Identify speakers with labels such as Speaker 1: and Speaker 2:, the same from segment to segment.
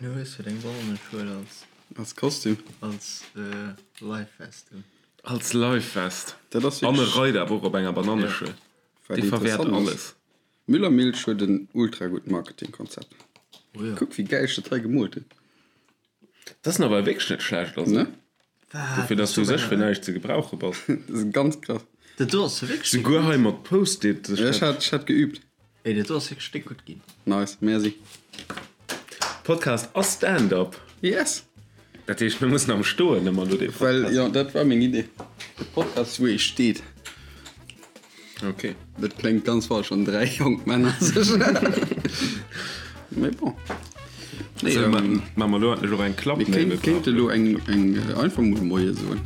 Speaker 1: Du hues jo deng Bananneschuel als.
Speaker 2: Als Kostüm.
Speaker 1: Als Lifevest un.
Speaker 3: Als Lifevest.
Speaker 2: Dat ass
Speaker 3: An e
Speaker 2: wierklech.
Speaker 3: reit awer och op enger Bananneschuel.
Speaker 2: Wat
Speaker 3: Dee verwäert
Speaker 2: interessant ass.
Speaker 3: alles.
Speaker 2: Müllermilch huet en ultra gutt Marketingkonzept.
Speaker 1: Oh jo.
Speaker 2: Kuck wéi gäil ech dat hei gemoolt hunn.
Speaker 3: Dat ass nawell wierklech net schlecht, also.
Speaker 2: Ne?
Speaker 1: Wat?
Speaker 3: Dofir, dass du sech fir näischt ze gebrauche bass.
Speaker 2: Dat ass ganz krass.
Speaker 1: Dat do ass wierklech déck
Speaker 3: Souguer
Speaker 1: gutt.
Speaker 3: hei mat Post-it.
Speaker 2: Ja, ech hat, ech hat geübt.
Speaker 1: Ey, dat do ass wierklech déck gutt ginn.
Speaker 2: Nice, merci.
Speaker 3: Podcast ass Stand-up.
Speaker 2: Yes!
Speaker 3: Dat heescht, mir mussen am Stoen ëmmer elo dee Podcast.
Speaker 2: Well, jo, dat war meng Idee. De Podcast, wou ee steet.
Speaker 3: Ok.
Speaker 2: Dat kléngt ganz falsch, wann 3 jonk Männer sech. Mee bon. Nee,
Speaker 3: Sou,
Speaker 2: ähm,
Speaker 3: ma mer elo endlech och eng Klapp?
Speaker 2: Mir kéint, kéinte elo eng, eng einfach mol Moie soen.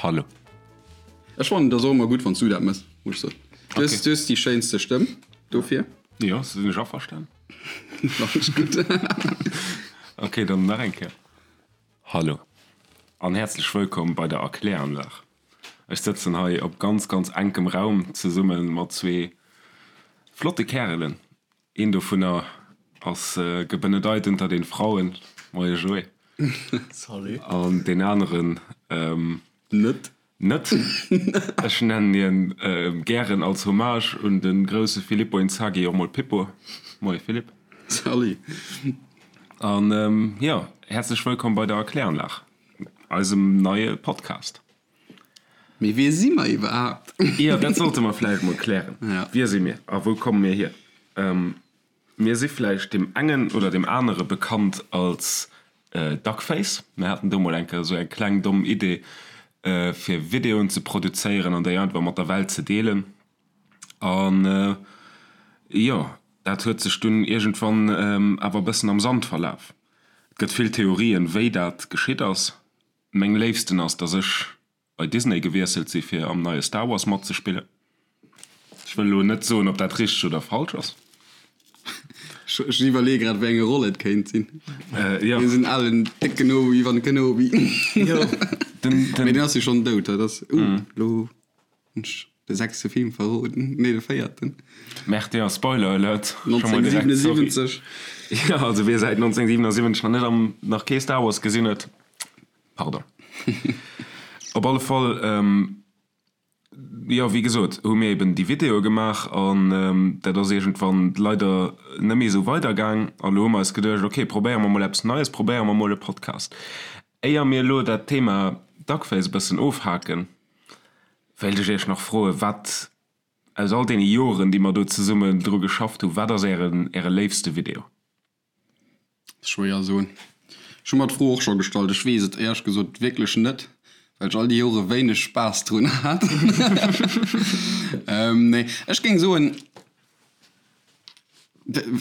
Speaker 3: Hallo.
Speaker 2: Ech fannen et ass och ëmmer gutt wann s du dat mëss, muss ech soen. Du hues, du hues déi schéinste Stëmm dofir.
Speaker 3: Jo, sinn ech averstan.
Speaker 2: Fannen ech gutt.
Speaker 3: Ok, dann nach eng Kéier. Hallo an häerzlech wëllkomm bei der Erkläranlag. Ech sëtzen hei op ganz, ganz enkem Raum zesumme mat zwee flotte Kärelen. Een dovunner ass gebenedeit unter den Frauen, moie Joé.
Speaker 1: Salut.
Speaker 3: An deen aneren
Speaker 2: Net.
Speaker 3: Net. Ech nennen hien gären als Hommage un de grousse Filippo Inzaghi och mol Pippo. Moie Philippe.
Speaker 2: Salut.
Speaker 3: An jo, häerzlech wëllkomm bei der Erkläranlag, eisem neie Podcast.
Speaker 2: Mee wie si mer iwwerhaapt?
Speaker 3: Jo, dat sollte mer vläicht mol klären. Wie si mir a wou komme mir hier? Mir si vläicht deem engen oder deem anere bekannt als Duckface. Mir haten do mol eng Kéier esou eng kleng domm Idee, fir Videoen ze produzéieren an déi einfach mat der Welt ze deelen. An jo, dat huet sech dunn iergendwann awer e bëssen am Sand verlaf. Et gëtt vill Theorien, wéi dat geschitt ass. Meng léifsten ass, dass ech bei Disney gewiesselt si fir am neie Star Wars matzespillen. Ech wëll elo net soen, ob dat richteg oder falsch ass.
Speaker 2: Ech iwwerleeë grad, wéi eng Roll et kéint sinn.
Speaker 3: Jo.
Speaker 2: Deen esou alen décken Obi-Wan Kenobi.
Speaker 3: Jo, den, den.
Speaker 2: Mee deen ass jo schonn dout, dat ass, uh, elo hunn ech de sechste Film verroden, nee, de véierten.
Speaker 3: Merde, jo, Spoiler Alert. Scho mol direkt, sorry.
Speaker 2: 1977.
Speaker 3: Jo, also wie säit 1977 nach net am, nach kee Star Wars gesinn huet, Pardon. Op alle Fall, jo, wéi gesot, hu mir eben déi Videoe gemaach an dat ass iergendwann leider net méi esou weidergaang. A lo hu mer eis geduecht, ok, probéiere mer mol eppes Neies, probéiere mer mol e Podcast. Éier mir elo dat Thema Duckface e bëssen ofhaken, wéilt ech iech nach froen, wat aus all deene Joren, déi mer do zesummen dru geschafft hu, wat ass ären, äre léifste Video?
Speaker 2: Schwéier soen. Ech hu mer d'Fro och scho gestallt. Ech weess et éierlech gesot wierklech net, well ech all déi Jore wéineg Spaass drun hat. Nee, ech géing soen,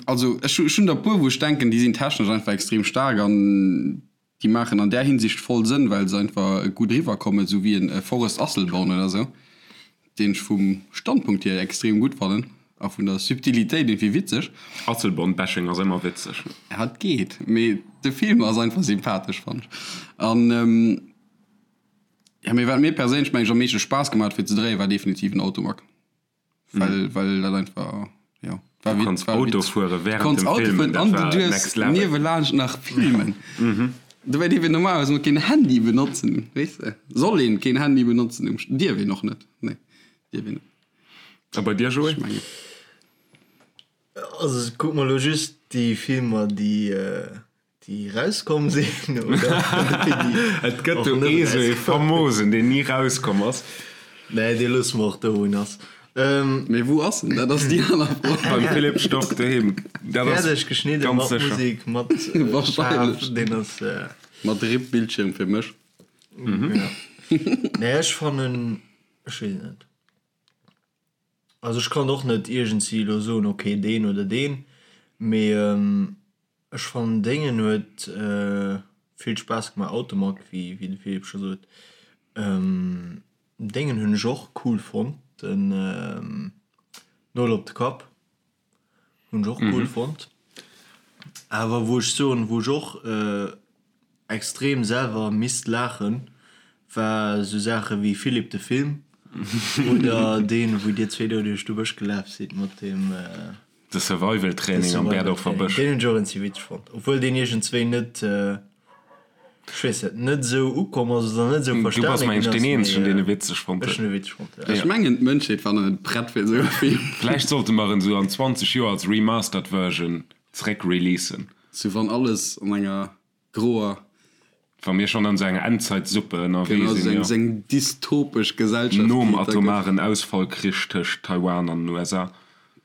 Speaker 2: also ech hunn der e puer, wou ech denken, déi sinn technesch einfach extrem staark an Déi maachen an där Hinsicht voll Sënn, well se einfach gutt eriwwer kommen, esou wéi en Forest Asselborn oder esou, deen ech vum Standpunkt hier extrem gutt fannen a vun der Subtilitéit iergendwéi witzeg.
Speaker 3: Asselborn-Bashing ass ëmmer witzeg.
Speaker 2: Ja, et geet, mee de Film ass einfach sympathesch, fannen ech. An jo, mee wat mir perséinlech, meng ech, am meeschte Spaass gemaach huet fir ze dréien, war definitiv en Automag. Well, well dat einfach, ja,
Speaker 3: war Du konns Auto fuere während dem Filmen,
Speaker 2: dat war next level. Niewelaanscht nach filmen. Dobäi dierf een normalerweis mol keen Handy benotzen, weess de? Soll een keen Handy benotzen um, dierf een och net, nee, dierf een net.
Speaker 3: A bei dir, Joé?
Speaker 2: Ech mengen.
Speaker 1: Also kuck mer elo just déi Filmer, déi Déi rauskomm sinn, oder?
Speaker 3: Et gëtt do ee sou ee famosen, deen ni rauskomm ass.
Speaker 1: Nee, dee loosse mer och do, wou en ass.
Speaker 2: Mee wou ass en? Dat ass déi aner Fro.
Speaker 3: Beim Philippe Storck doheem. Dat ass
Speaker 1: Fäerdeg geschnidden,
Speaker 3: ganz
Speaker 1: mat
Speaker 3: sécher.
Speaker 1: Musek, mat Faarf, deen ass.
Speaker 2: Mat RIP Bildschirm fir mech.
Speaker 1: Ja. Nee, ech fannen, ech weess et net. Also ech kann och net iergendwéi elo soen, okay, deen oder deen, mee ech fannen déngen huet vill Spaass gemaach, Automag, wéi de Philippe scho sot. Déngen hunn ech och cool fonnt, den Nol op de Kapp hunn ech och cool fonnt. Awer wou ech soen, wou ech och extrem selwer misst laachen, war sou Saache wéi Philippe de Film oder deen, wou dir zwee do duerch de Bësch gelaf sidd mat deem.
Speaker 3: De Survival Training am Berdorfer Bësch.
Speaker 1: Deen hunn ech och eenzi witzeg fonnt, obwuel deen iergendzwéi net, ech weess net, net esou ukomm ass oder net esou
Speaker 3: Du bass
Speaker 1: verstane
Speaker 3: mengen
Speaker 1: ginn
Speaker 3: ech deen
Speaker 1: ass,
Speaker 3: eenzegen
Speaker 1: mee
Speaker 3: deen e witzeg fonnt
Speaker 1: ech
Speaker 3: huet.
Speaker 1: hunn e witzeg fonnt, jo.
Speaker 2: Ech mengen d'Mënschheet war nach net prett fir esou e Film.
Speaker 3: Vläicht sollte mer en esou an 20 Joer als Remastered Version zréck releasen.
Speaker 2: Sou wann alles an enger groer.
Speaker 3: Wa mir schonn an esou enger Endzeitsuppe ënnerwee
Speaker 2: Genau,
Speaker 3: sinn, jo.
Speaker 2: esou eng dystopesch Gesellschaft,
Speaker 3: Nom
Speaker 2: déi et da gëtt.
Speaker 3: atomaren Ausfallkrich tëscht Taiwan an den USA.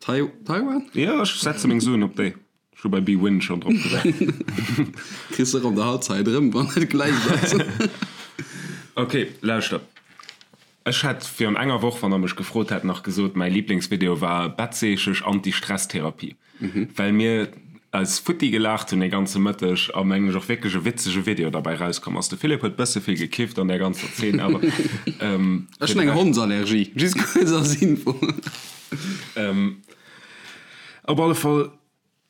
Speaker 2: Tai Taiwan?
Speaker 3: Jo, ech setze meng Suen op déi. Ech hu bei bwin schonn drop gesat.
Speaker 2: Kriss och an der Halbzeit erëm, wann et gläich ass.
Speaker 3: Ok, lauschter. Ech hätt virun enger Woch, wann der mech gefrot hätt, nach gesot, mäi Liblingsvideo war Bettseechesch Anti-Stress-Therapie, well mir eis futti gelaacht hunn dee ganze Mëtteg a mengen ech och wierklech e witzege Video derbäi rauskomm ass. De Philippe huet bësse vill gekifft an där ganzer Zeen, awer
Speaker 2: Ech hunn eng Hondsallergie, just kuerz als Info.
Speaker 3: Op alle Fall,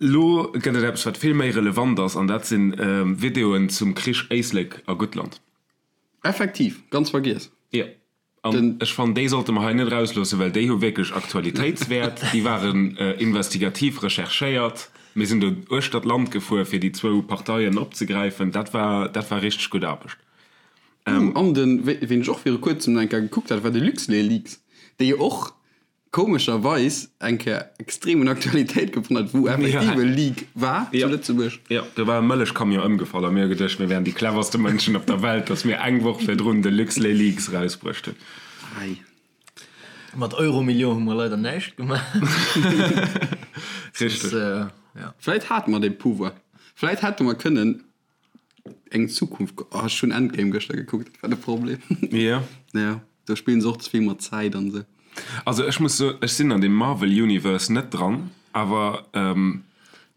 Speaker 3: lo gëtt et eppes, wat vill méi relevant ass, an dat si Videoen zum Krich Éislek a Guttland.
Speaker 2: Effektiv, ganz vergiess.
Speaker 3: Jo, an ech fannen, déi sollte mer hei net erausloossen, well déi hu wierklech Aktualitéitswäert. Déi waren investigativ recherchéiert. Mir sinn do uechter d'Land gefuer, fir déi zwou Parteien opzegräifen. Dat war, dat war richteg gutt Aarbecht.
Speaker 2: Uh, an den, ween ech och viru kuerzem nach eng Kéier gekuckt hat, war de LuxLeaks, dee jo och komescherweis eng Kéier extrem un Aktualitéit gewonnen huet, wou effektiv e Leak war zu Lëtzebuerg.
Speaker 3: Jo, do war e Mëllechcamion ëmgefall a mir hu geduecht, mir wären déi cleverste Mënschen op der Welt, datt mir eng Woch virdrun de LuxLeaks erausbruecht hunn.
Speaker 2: Ei.
Speaker 1: Mat Euromillion hu mer leider näischt gemaach.
Speaker 3: Richteg.
Speaker 2: Vläit hate mer dee Pouvoir. Vläit hätte mer kënnen Eng Zukunft, oh ech hunn Endgame gëschter gekuckt, dat war de Problem.
Speaker 3: Jo.
Speaker 2: Ja, do spillen se och ze vill mat Zäit an esou.
Speaker 3: Also ech muss soen, ech sinn an deem Marvel Universe net dran, awer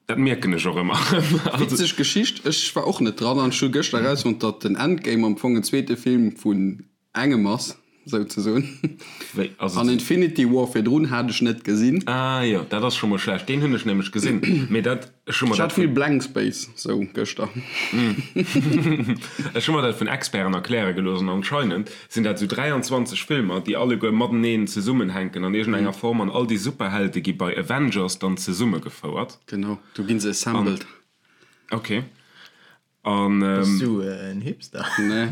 Speaker 3: dat mierken ech och ëmmer erëm.
Speaker 2: Witzeg Geschicht, ech war och net dran an ech hu gëschter erausfonnt, datt den Endgame am Fong en zweete Film vun Engem ass, souzesoen.
Speaker 3: Wéi ass et?
Speaker 2: An Infinity War virdrun hat ech net gesinn.
Speaker 3: Ah jo, dat ass scho mol schlecht. Deen hunn ech nämlech gesinn, mee dat, ech hu mer
Speaker 2: Ech
Speaker 3: dat
Speaker 2: hat vill Blank Space sou gëschter.
Speaker 3: Ech hu mer dat vun Experten erkläre gelooss an anscheinend sinn dat sou 23 Filmer, déi alleguer mateneen zesummenhänken an iergendenger Form an all déi Superhelde gi bei Avengers dann zesummegefouert.
Speaker 2: Genau, do ginn se assembled.
Speaker 3: Ok. An,
Speaker 1: Bass du en Hipster?
Speaker 2: Nee,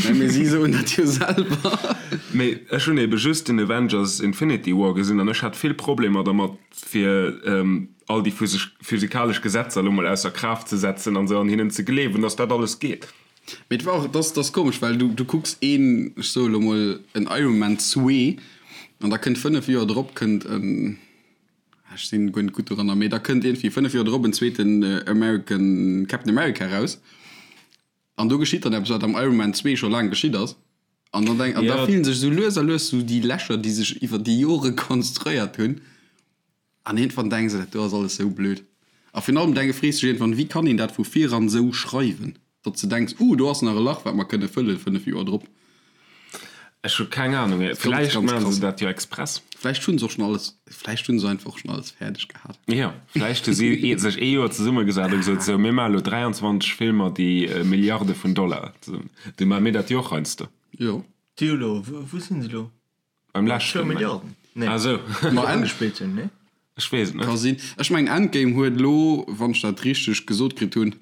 Speaker 2: nee, mee si soen dat jo selwer.
Speaker 3: Mee ech hunn ebe just den Avengers Infinity War gesinn an ech hat vill Problemer dermat fir all déi physikalesch Gesetzer elo mol ausser Kraaft ze setzen an esou an hinnen ze gleewen, dass dat alles geet.
Speaker 2: Mee et war och, et ass, et ass komesch, well du, du kucks een, ech soe lo mol en Iron Man zwee an da kënnt 5 Joer drop kënnt en, Ech sinn guer net gutt doranner, mee da kënnt iergendwéi 5 Joer drop en zweeten American Captain America raus an do geschitt dann eppes wat am Iron Man 2 scho laang geschitt ass an dann denk an da fillen sech esou lues a lues esou déi Lächer déi sech iwwer déi Jore konstruéiert hunn an iergendwann denks de dat do ass alles esou blöd a virun allem denke frees dech iergendwann wéi kann een dat vu viran esou schreiwen? Datt s de denks, Uh, do ass nach e Lach, wat mer kënne fëllen 5 Joer drop.
Speaker 3: Ech hu keng Ahnung. Vläicht maache se dat jo express.
Speaker 2: Vläicht hunn se och schonn alles, vläicht hunn se einfach och schonn alles fäerdeg gehat.
Speaker 3: Jo, vläicht hu si sech ee Joer zesummegesat a gesot, Sou, mir maache lo 23 Filmer, déi Milliarde vun Dollar zesummen. Du maache mir dat jo och heiansdo.
Speaker 2: Jo.
Speaker 1: Déi hu lo, wou sinn se lo?
Speaker 3: Beim leschten.
Speaker 1: Zwou Milliarden? Nee.
Speaker 3: Ah sou.
Speaker 2: Ma
Speaker 1: Déi agespillt hunn, nee?
Speaker 3: Ech weess et net.
Speaker 2: Ka sinn. Ech mengen Endgame huet elo, wann ech dat richteg gesot kritt hunn,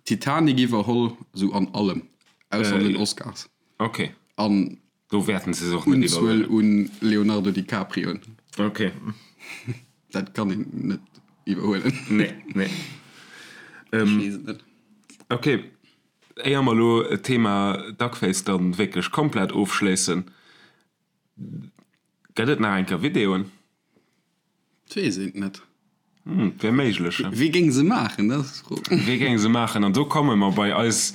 Speaker 2: Titanic iwwerholl, sou an allem, ausser an den Oscars.
Speaker 3: Ok.
Speaker 2: An
Speaker 3: Do wäerten se se och net
Speaker 2: Unzuel
Speaker 3: iwwerhuelen.
Speaker 2: un Leonardo DiCaprioen.
Speaker 3: Ok.
Speaker 2: Dat kann een net iwwerhuelen.
Speaker 3: Nee, nee.
Speaker 2: Ech weess et net.
Speaker 3: Ok. Éier mer elo d'Thema Duckface dann wierklech komplett ofschléissen, gëtt et nach eng Kéier Videoen?
Speaker 2: Et weess een et net.
Speaker 3: Hm, wär méiglech, he?
Speaker 2: Wie géing se maachen, dat ass d'Fro.
Speaker 3: Wie géing se maachen? An do komme mer bei eis,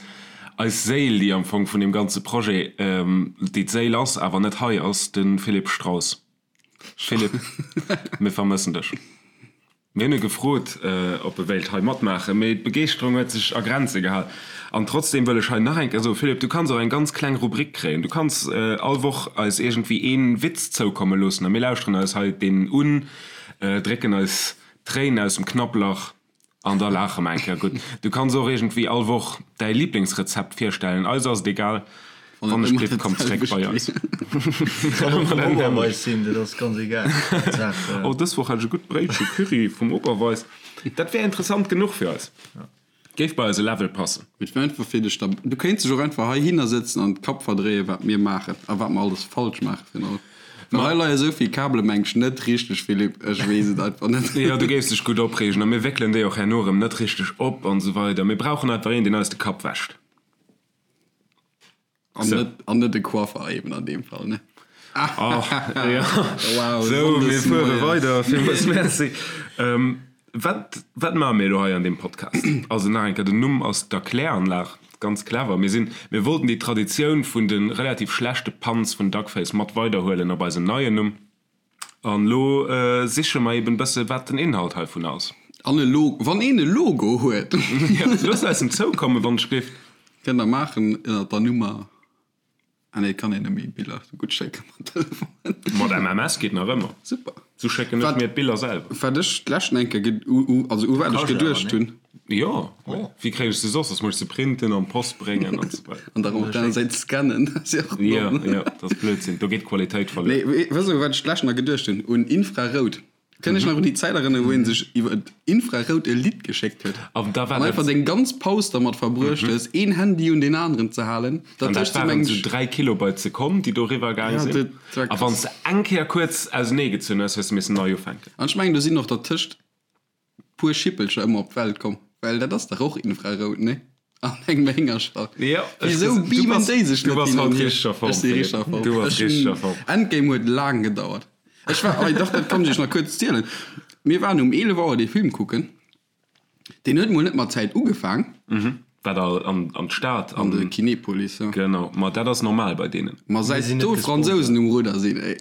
Speaker 3: eis Séil, déi am Fong vun deem ganze Projet, déi d'Séil ass, awer net hei ass, de Philippe Strauss. Philippe, mir vermëssen dech. Mir hunn e gefrot, ob e wéilt hei matmaachen, mee d'Begeeschterung huet sech a Grenze gehal. An trotzdeem wëll ech hei nach eng Kéier soen, Philippe, du kanns och eng ganz kleng Rubrik kréien. Du kanns all Woch eis iergendwéi ee Witz zoukomme loossen a mir lauschteren eis hei deen un, drécken eis d'Tréin aus dem Knapplach An da laache mer eng Kéier gutt. Du kanns och iergendwéi all Woch däi Liblingsrezept virstellen. Eis ass et egal. Wann ech blitt, komm zréck bei eis.
Speaker 1: Kann och vum Oberweis sinn, dat ass ganz egal.
Speaker 3: Oh, dës Woch hat ech e gutt Bréitche Curry vum Oberweis. Dat wär interessant genuch fir eis. Géif bei eise Level passen.
Speaker 2: Et wär einfach fir dech da. Du kéints dech och einfach heihinner sëtzen an d'Kapp verdréien, wat mir maachen a wat mer alles falsch maachen virun allem. Well hei leie sou vill Kabele meng ech net richteg, Philippe, ech weess et einfach net.
Speaker 3: Jo, du géifs dech gutt opreegen a mir wéckelen déi och herno erëm net richteg op an esou weider. Mir brauchen einfach een, deen eis de Kapp wäscht.
Speaker 2: An net, an net e Coiffer eben an deem Fall, ne?
Speaker 3: Ach, jo.
Speaker 2: Wow,
Speaker 3: Sou, mir
Speaker 2: Sonndes
Speaker 3: fuere
Speaker 2: moies.
Speaker 3: weider. Villmools Merci. Wat, wat maache mir elo hei an deem Podcast? Also nach eng Kéier, den Numm ass d'Erkläranlag. Ganz clever. Mir sinn, mir wollten déi Traditioun vun de relativ schlechte Puns vun Duckface mat weiderhuelen op eisem neien Numm. An elo siche mer eben bësse wat den Inhalt heivun ass.
Speaker 2: An e Logo, wann een e Logo huet.
Speaker 3: Jo, looss eis en zoukommen, wann ech géif.
Speaker 2: Kënnt der maachen ënnert der Nummer. Ah nee, kann een net méi Biller sou gutt schécken mat Telefon.
Speaker 3: Mat MMS geet nach ëmmer.
Speaker 2: Super.
Speaker 3: Sou schécken ech mir d'Biller selwer.
Speaker 2: Wat ech d'leschten eng Kéier, also u wat ech geduecht hunn.
Speaker 3: Jo, wéi kréien ech se soss? Soss muss ech se printen an d'Post bréngen an sou weider.
Speaker 2: An dann op der aner Säit scannen, dat ass jo och
Speaker 3: domm. Jo, jo, dat ass Blödsinn, do geet d'Qualitéit verluer.
Speaker 2: Nee, weess de u wat ech d'leschten nach geduecht hunn? Un Infrarout. Kënnt iech nach un déi Zäit erënneren, wou een sech iwwer Infrarout e Lidd geschéckt huet?
Speaker 3: An da war
Speaker 2: An einfach
Speaker 3: dat.
Speaker 2: deng ganz Paus dermat verbruecht hues, een Handy un deen aneren ze halen.
Speaker 3: An dat
Speaker 2: Dertëscht sinn,
Speaker 3: waren
Speaker 2: mengen
Speaker 3: esou
Speaker 2: ech.
Speaker 3: 3 Kilobyte d'Sekonn, déi do eriwwer gaang
Speaker 2: Ja,
Speaker 3: sinn.
Speaker 2: dat war
Speaker 3: A wann s
Speaker 2: krass.
Speaker 3: de eng Kéier kuerz auseneegezunn hues, hues de missen nei ufänken.
Speaker 2: An ech mengen, do sinn och dertëscht puer Schippelcher ëmmer op d'Welt komm, well dat ass dach och Infrarout, nee? An engem Héngerstall.
Speaker 3: Jo, ech
Speaker 2: Wisou
Speaker 3: du
Speaker 2: beamen
Speaker 3: bass,
Speaker 2: déi sech
Speaker 3: du
Speaker 2: net
Speaker 3: bass
Speaker 2: hin
Speaker 3: haut
Speaker 2: an hier?
Speaker 3: richteg a Form,
Speaker 2: Ech si richteg a
Speaker 3: Philippe.
Speaker 2: Form.
Speaker 3: Du bass
Speaker 2: Ech
Speaker 3: richteg a
Speaker 2: hunn,
Speaker 3: Form.
Speaker 2: Endgame huet laang gedauert. Ech war, ei dach, dat kann ech iech nach kuerz zielen. Mir waren um 11 Auer dee Film kucken. Deen huet mol net mat Zäit ugefaang.
Speaker 3: Wat all an an d'Stad
Speaker 2: An de Kinepolis, jo.
Speaker 3: Genau, ma dat ass normal bei deenen.
Speaker 2: Ma
Speaker 1: Mir
Speaker 2: säit
Speaker 1: sinn net
Speaker 2: do
Speaker 1: gesponsert.
Speaker 2: Fransousen um Rudder sinn, ey,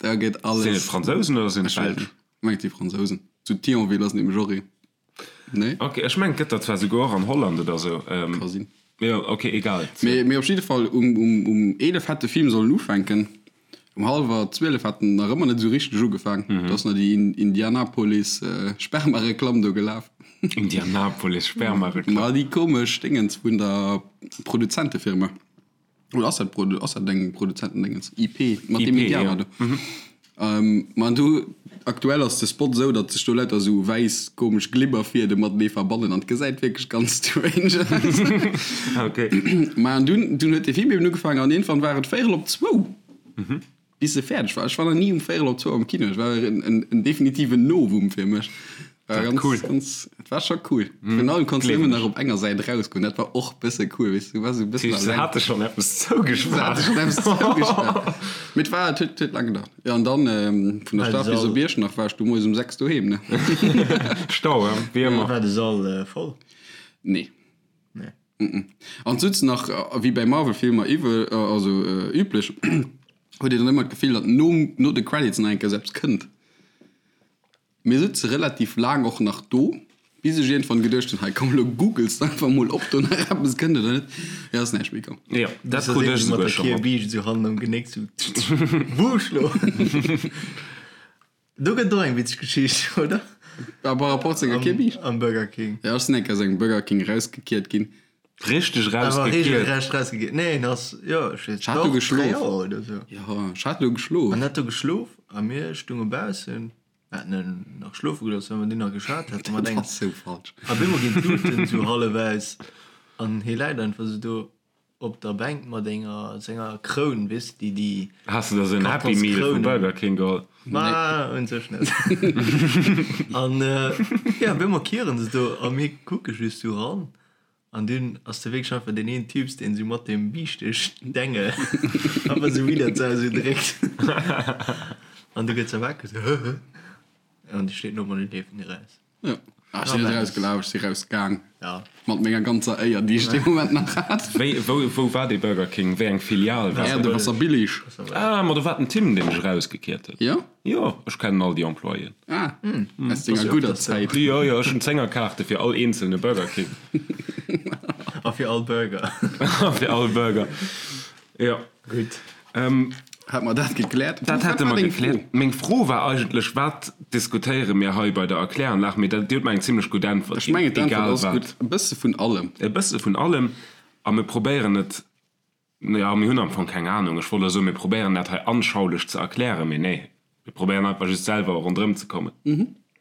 Speaker 2: da gëtt
Speaker 3: Sinn et
Speaker 2: alles.
Speaker 3: Fransousen oder sinn et
Speaker 2: Ech weess
Speaker 3: Belsch?
Speaker 2: net. Ech mengen et si Fransousen. Zu Thionville ass nämlech och een. Nee?
Speaker 3: Ok, ech mengen et gëtt der zwar souguer och an Holland oder sou.
Speaker 2: Ka sinn.
Speaker 3: Jo, ok, egal.
Speaker 2: Mee, mee op jidde Fall, um, um, um 11 hätt de Film sollen ufänken. Um hallwer 12 hat en nach ëmmer net esou richteg ugefaang. Do ass nach déi Indianapolis Spermareklamm do gelaf.
Speaker 3: Indianapolis Spermareklamm?
Speaker 2: Ma déi komesch Déngens vun der Produzentefirma. Oder ass dat Produ ass dat eng Produzentendéngens? IP, mat deem
Speaker 3: IP,
Speaker 2: Indianer
Speaker 3: ja.
Speaker 2: do. Ma du, aktuell ass de Spot esou, datt sech do lauter esou wäiss komesch Glibberfiede matenee verbannen an et gesäit wierklech ganz strange aus.
Speaker 3: Ok.
Speaker 2: Ma an dunn, dunn huet de Film eben ugefaangen an iergendwann war et véierel op zwou, bis e fäerdeg war. Ech war nach ni um véierel op zwou am Kino. Et war en, en, en definitiven Novum fir mech. War
Speaker 3: Dat
Speaker 2: ganz,
Speaker 3: cool.
Speaker 2: ganz, et war scho cool. Virun allem konns du
Speaker 3: Gleewen
Speaker 2: nëmmen
Speaker 3: ech.
Speaker 2: nach op enger Säit erausgoen. Dat war och bësse cool, weess du, du waars esou e bëssen
Speaker 3: Se
Speaker 2: alleng.
Speaker 3: hate schonn eppes
Speaker 2: Se hate
Speaker 3: zougespaart.
Speaker 2: schonn eppes zougespaart. Mee et war, et huet, huet laang gedauert. Jo, an dann vun der
Speaker 1: War de
Speaker 2: Stad bis
Speaker 1: Sall.
Speaker 2: op Iechternach war ech du moies um 6 doheem, ne?
Speaker 3: Stau, hein? Wéi ëmmer.
Speaker 1: War de Sall voll?
Speaker 2: Nee.
Speaker 1: Nee.
Speaker 2: An d'Sutz nach, wéi bäi Marvel-Filmer iwwe, also üblech, huet een dann ëmmer d'Gefill, datt nom, no de Credits nach eng Kéier eppes kënnt. Mir sutze relativ laang och nach do, bis ech iergendwann geduecht hunn, hei komm elo googles de einfach mol ob do nach eppes kënnt oder net. Jo, ass näischt méi komm.
Speaker 3: Jo, dat krut ech
Speaker 1: Mat
Speaker 3: esouguer
Speaker 1: der
Speaker 3: scho mat.
Speaker 1: Kierbiischt esou hannen am Genéck sou Wusch lo! Do gëtt et och eng witzeg Geschicht, oder?
Speaker 2: Par rapport zu enger Kierbiischt?
Speaker 1: Am Burger King.
Speaker 2: Jo, ech sinn eng Kéier aus engem Burger King rausgekiert ginn.
Speaker 3: Richteg
Speaker 1: Awer
Speaker 3: rausgekiert?
Speaker 1: regelrecht rausgekiert. Nee, en ass, jo, ech weess,
Speaker 2: Ech hat do
Speaker 1: doch, 3
Speaker 2: geschlof.
Speaker 1: Joer oder sou.
Speaker 2: Jo, ech hat do geschlof.
Speaker 1: An hat do geschlof a mir stunge baussen. Mir haten en nach schlofe gelooss, well mer dunn nach geschwat haten mat
Speaker 2: Dat
Speaker 1: engem.
Speaker 2: ass sou falsch.
Speaker 1: A bemol ginn d'Luuten sou hallef aus an hie läit einfach sou do op der Bänk mat enger senger Kroun, weess de, déi déi
Speaker 3: Has de der sou en Happy Meal vu
Speaker 1: Kartonskrounen.
Speaker 3: Burger King geholl?
Speaker 1: Ma un sech net. An jo, bemol kieren se do a mir kucke just sou ran. An dunn ass do wierklech einfach deen een Typs, deen esou mat deem Biischteg-Dengel einfach esou widder d'Sau esou dréckt. An du gëtt se wakereg, esou hë hë. An déi steet no an déi leeft ni raus.
Speaker 2: Jo. Ah, ech sinn net erausgelaf, ech si rausgaang. Ja. Mat menger ganzer Éier, déi ech dee Moment nach hat.
Speaker 3: Wéi, wou, wou war dee Burger King? Wéi eng Filial
Speaker 2: war dat? Äerdewaasserbillig.
Speaker 3: Ah, ma do war den Tim, dee mech erausgekiert huet.
Speaker 2: Jo?
Speaker 3: Jo, ech kennen all déi Employéen.
Speaker 2: Ah, aus denger gudder Zäit.
Speaker 3: Jo, jo, ech hunn Zéngerkaarte fir all eenzelne Burger King.
Speaker 1: A fir all Burger.
Speaker 3: A fir all Burger, jo.
Speaker 1: Gutt.
Speaker 2: Hätte mer dat gekläert.
Speaker 3: Dat hätte mer gekläert. Meng Fro war eigentlech, Wat diskutéiere mir hei bei der Erkläranlag? Mee dat, Dir hutt mer eng zimlech gutt Äntwert
Speaker 2: ginn. Ech mengen, d'Äntwert ass gutt. E bësse vun allem.
Speaker 3: E bësse vun allem. A mir probéieren et, jo, mir hunn am Fong keng Anung. Ech wollt elo soen, mir probéieren dat hei anschaulich ze erklären, mee nee, mir probéieren einfach just selwer ronderëm ze kommen.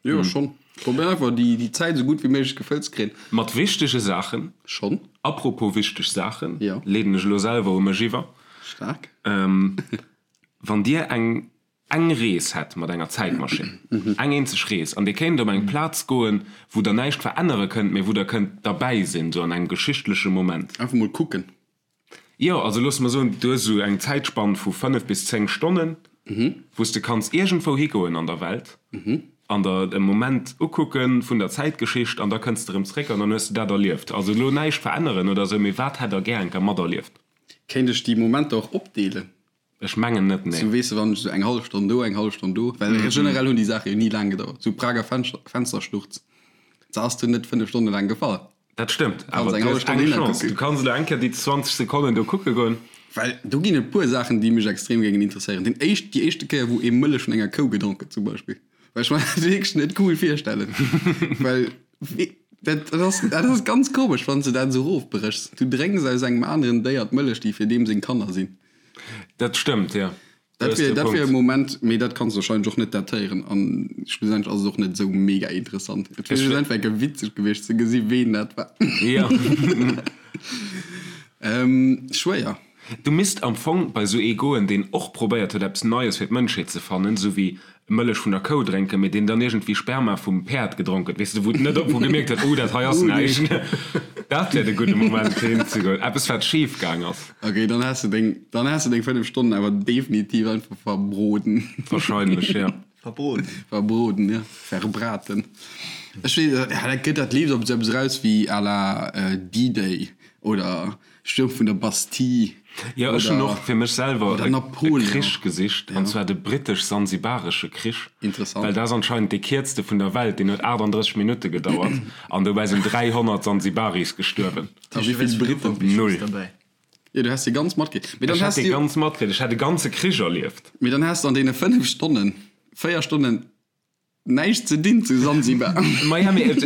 Speaker 2: Jo, schonn. Probéieren einfach, déi Zäit esou gutt wéi méiglech gefëllt ze kréien.
Speaker 3: Mat wichtege Saachen.
Speaker 2: Schonn.
Speaker 3: Apropos wichteg Saachen, leeden ech elo selwer u mech iwwer.
Speaker 2: Staark.
Speaker 3: Wann Dir eng eng Rees hätt mat enger Zäitmaschinn, eng eenzeg Rees, an Dir kéint op eng Plaz goen, wou Der näischt verännere kënnt, mee wou Der kënnt derbäi sinn, sou an engem geschichtleche Moment.
Speaker 2: Einfach mol kucken.
Speaker 3: Jo, also loosse mer soen, du hues esou eng Zäitspann vu 5 bis 10 Stonnen, wou s de kanns iergendwou higoen an der Welt an der e Moment ukucke vun der Zäitgeschicht an da kënns de erëm zréck an dann hues de dat erlieft. Also elo näischt veränneren oder esou, mee wat hätt der gär eng Kéier materlieft?
Speaker 2: Kéint ech déi Momenter och opdeelen?
Speaker 3: Ech mengen net, nee.
Speaker 2: Sou weess de, wann ech sou eng hallef Stonn do, eng hallef Stonn do, well generell hunn déi Saache jo ni laang gedauert. Sou Prager Fenstersturz, se ass dunn net 5 Stonne laang gefall.
Speaker 3: Dat stëmmt, awer du hues eng Chance, du kanns elo eng Kéier déi 20 Sekonnen do kucke goen.
Speaker 2: Well do ginn et puer Saachen, déi mech extrem géingen interesséieren. Deen éischt, déi éischte Kéier, wou ee Mëllech vun enger Kou gedronk huet zum Beispill, well ech mer dat wierklech net cool virstellen, well dat ass, dat ass ganz komesch, wann s de dat esou erofbréchs. Du drénks aus engem aneren Déier d'Mëllech, déi fir deem seng Kanner sinn.
Speaker 3: Dat stëmmt, jo.
Speaker 2: Dat wier, dat wier e Moment, mee dat kanns de wahrscheinlech och net datéieren an schlussendlech ass et och net esou mega interessant. Et wier just einfach eng witzeg gewiescht ze gesi ween dat war.
Speaker 3: Jo.
Speaker 2: Schwéier.
Speaker 3: Du misst am Fong bei esou ee goen, deen och probéiert huet eppes Neies fir d'Mënschheet ze fannen, esou wéi Mëllech vun der Kou drénken, mee deen dann iergendwéi Sperma vum Päerd gedronk huet, weess de, wou net op, wou gemierkt huet, oh, dat hei ass näischt. Dat wär de gudde Moment fir hin ze goen. Eppes wat schif gaang ass.
Speaker 2: Ok, dann has de deng, dann has de deng 5 Stonnen awer definitiv einfach verbroden.
Speaker 3: Wahrscheinlech, ja.
Speaker 1: Verbroden.
Speaker 2: Verbroden, ja. Verbraten. Ech weess, ja, dat gëtt, dat leeft op esou eppes eraus wéi à la D-Day oder Stuerm vun der Bastille.
Speaker 3: Jo, ech hunn och fir mech selwer e Krich gesicht, an zwar de britesch-sansibaresche Krich.
Speaker 2: Interessant.
Speaker 3: Well dat ass anscheinend dee kierzte vun der Welt, deen huet 38 Minutte gedauert an dobäi sinn 300 Sansibaris gestuerwen.
Speaker 2: A wéi vill Briten?
Speaker 3: Null.
Speaker 2: Jo, du häss déi ganz matkritt.
Speaker 3: Mee dann häss du. Ech hätt déi ganz matkritt, ech hätt e ganze Krich erlieft.
Speaker 2: Mee dann häss de an deene 5 Stonnen, 4 Stonnen Näischt ze dinn zu Sansibar.
Speaker 3: Maja, mee et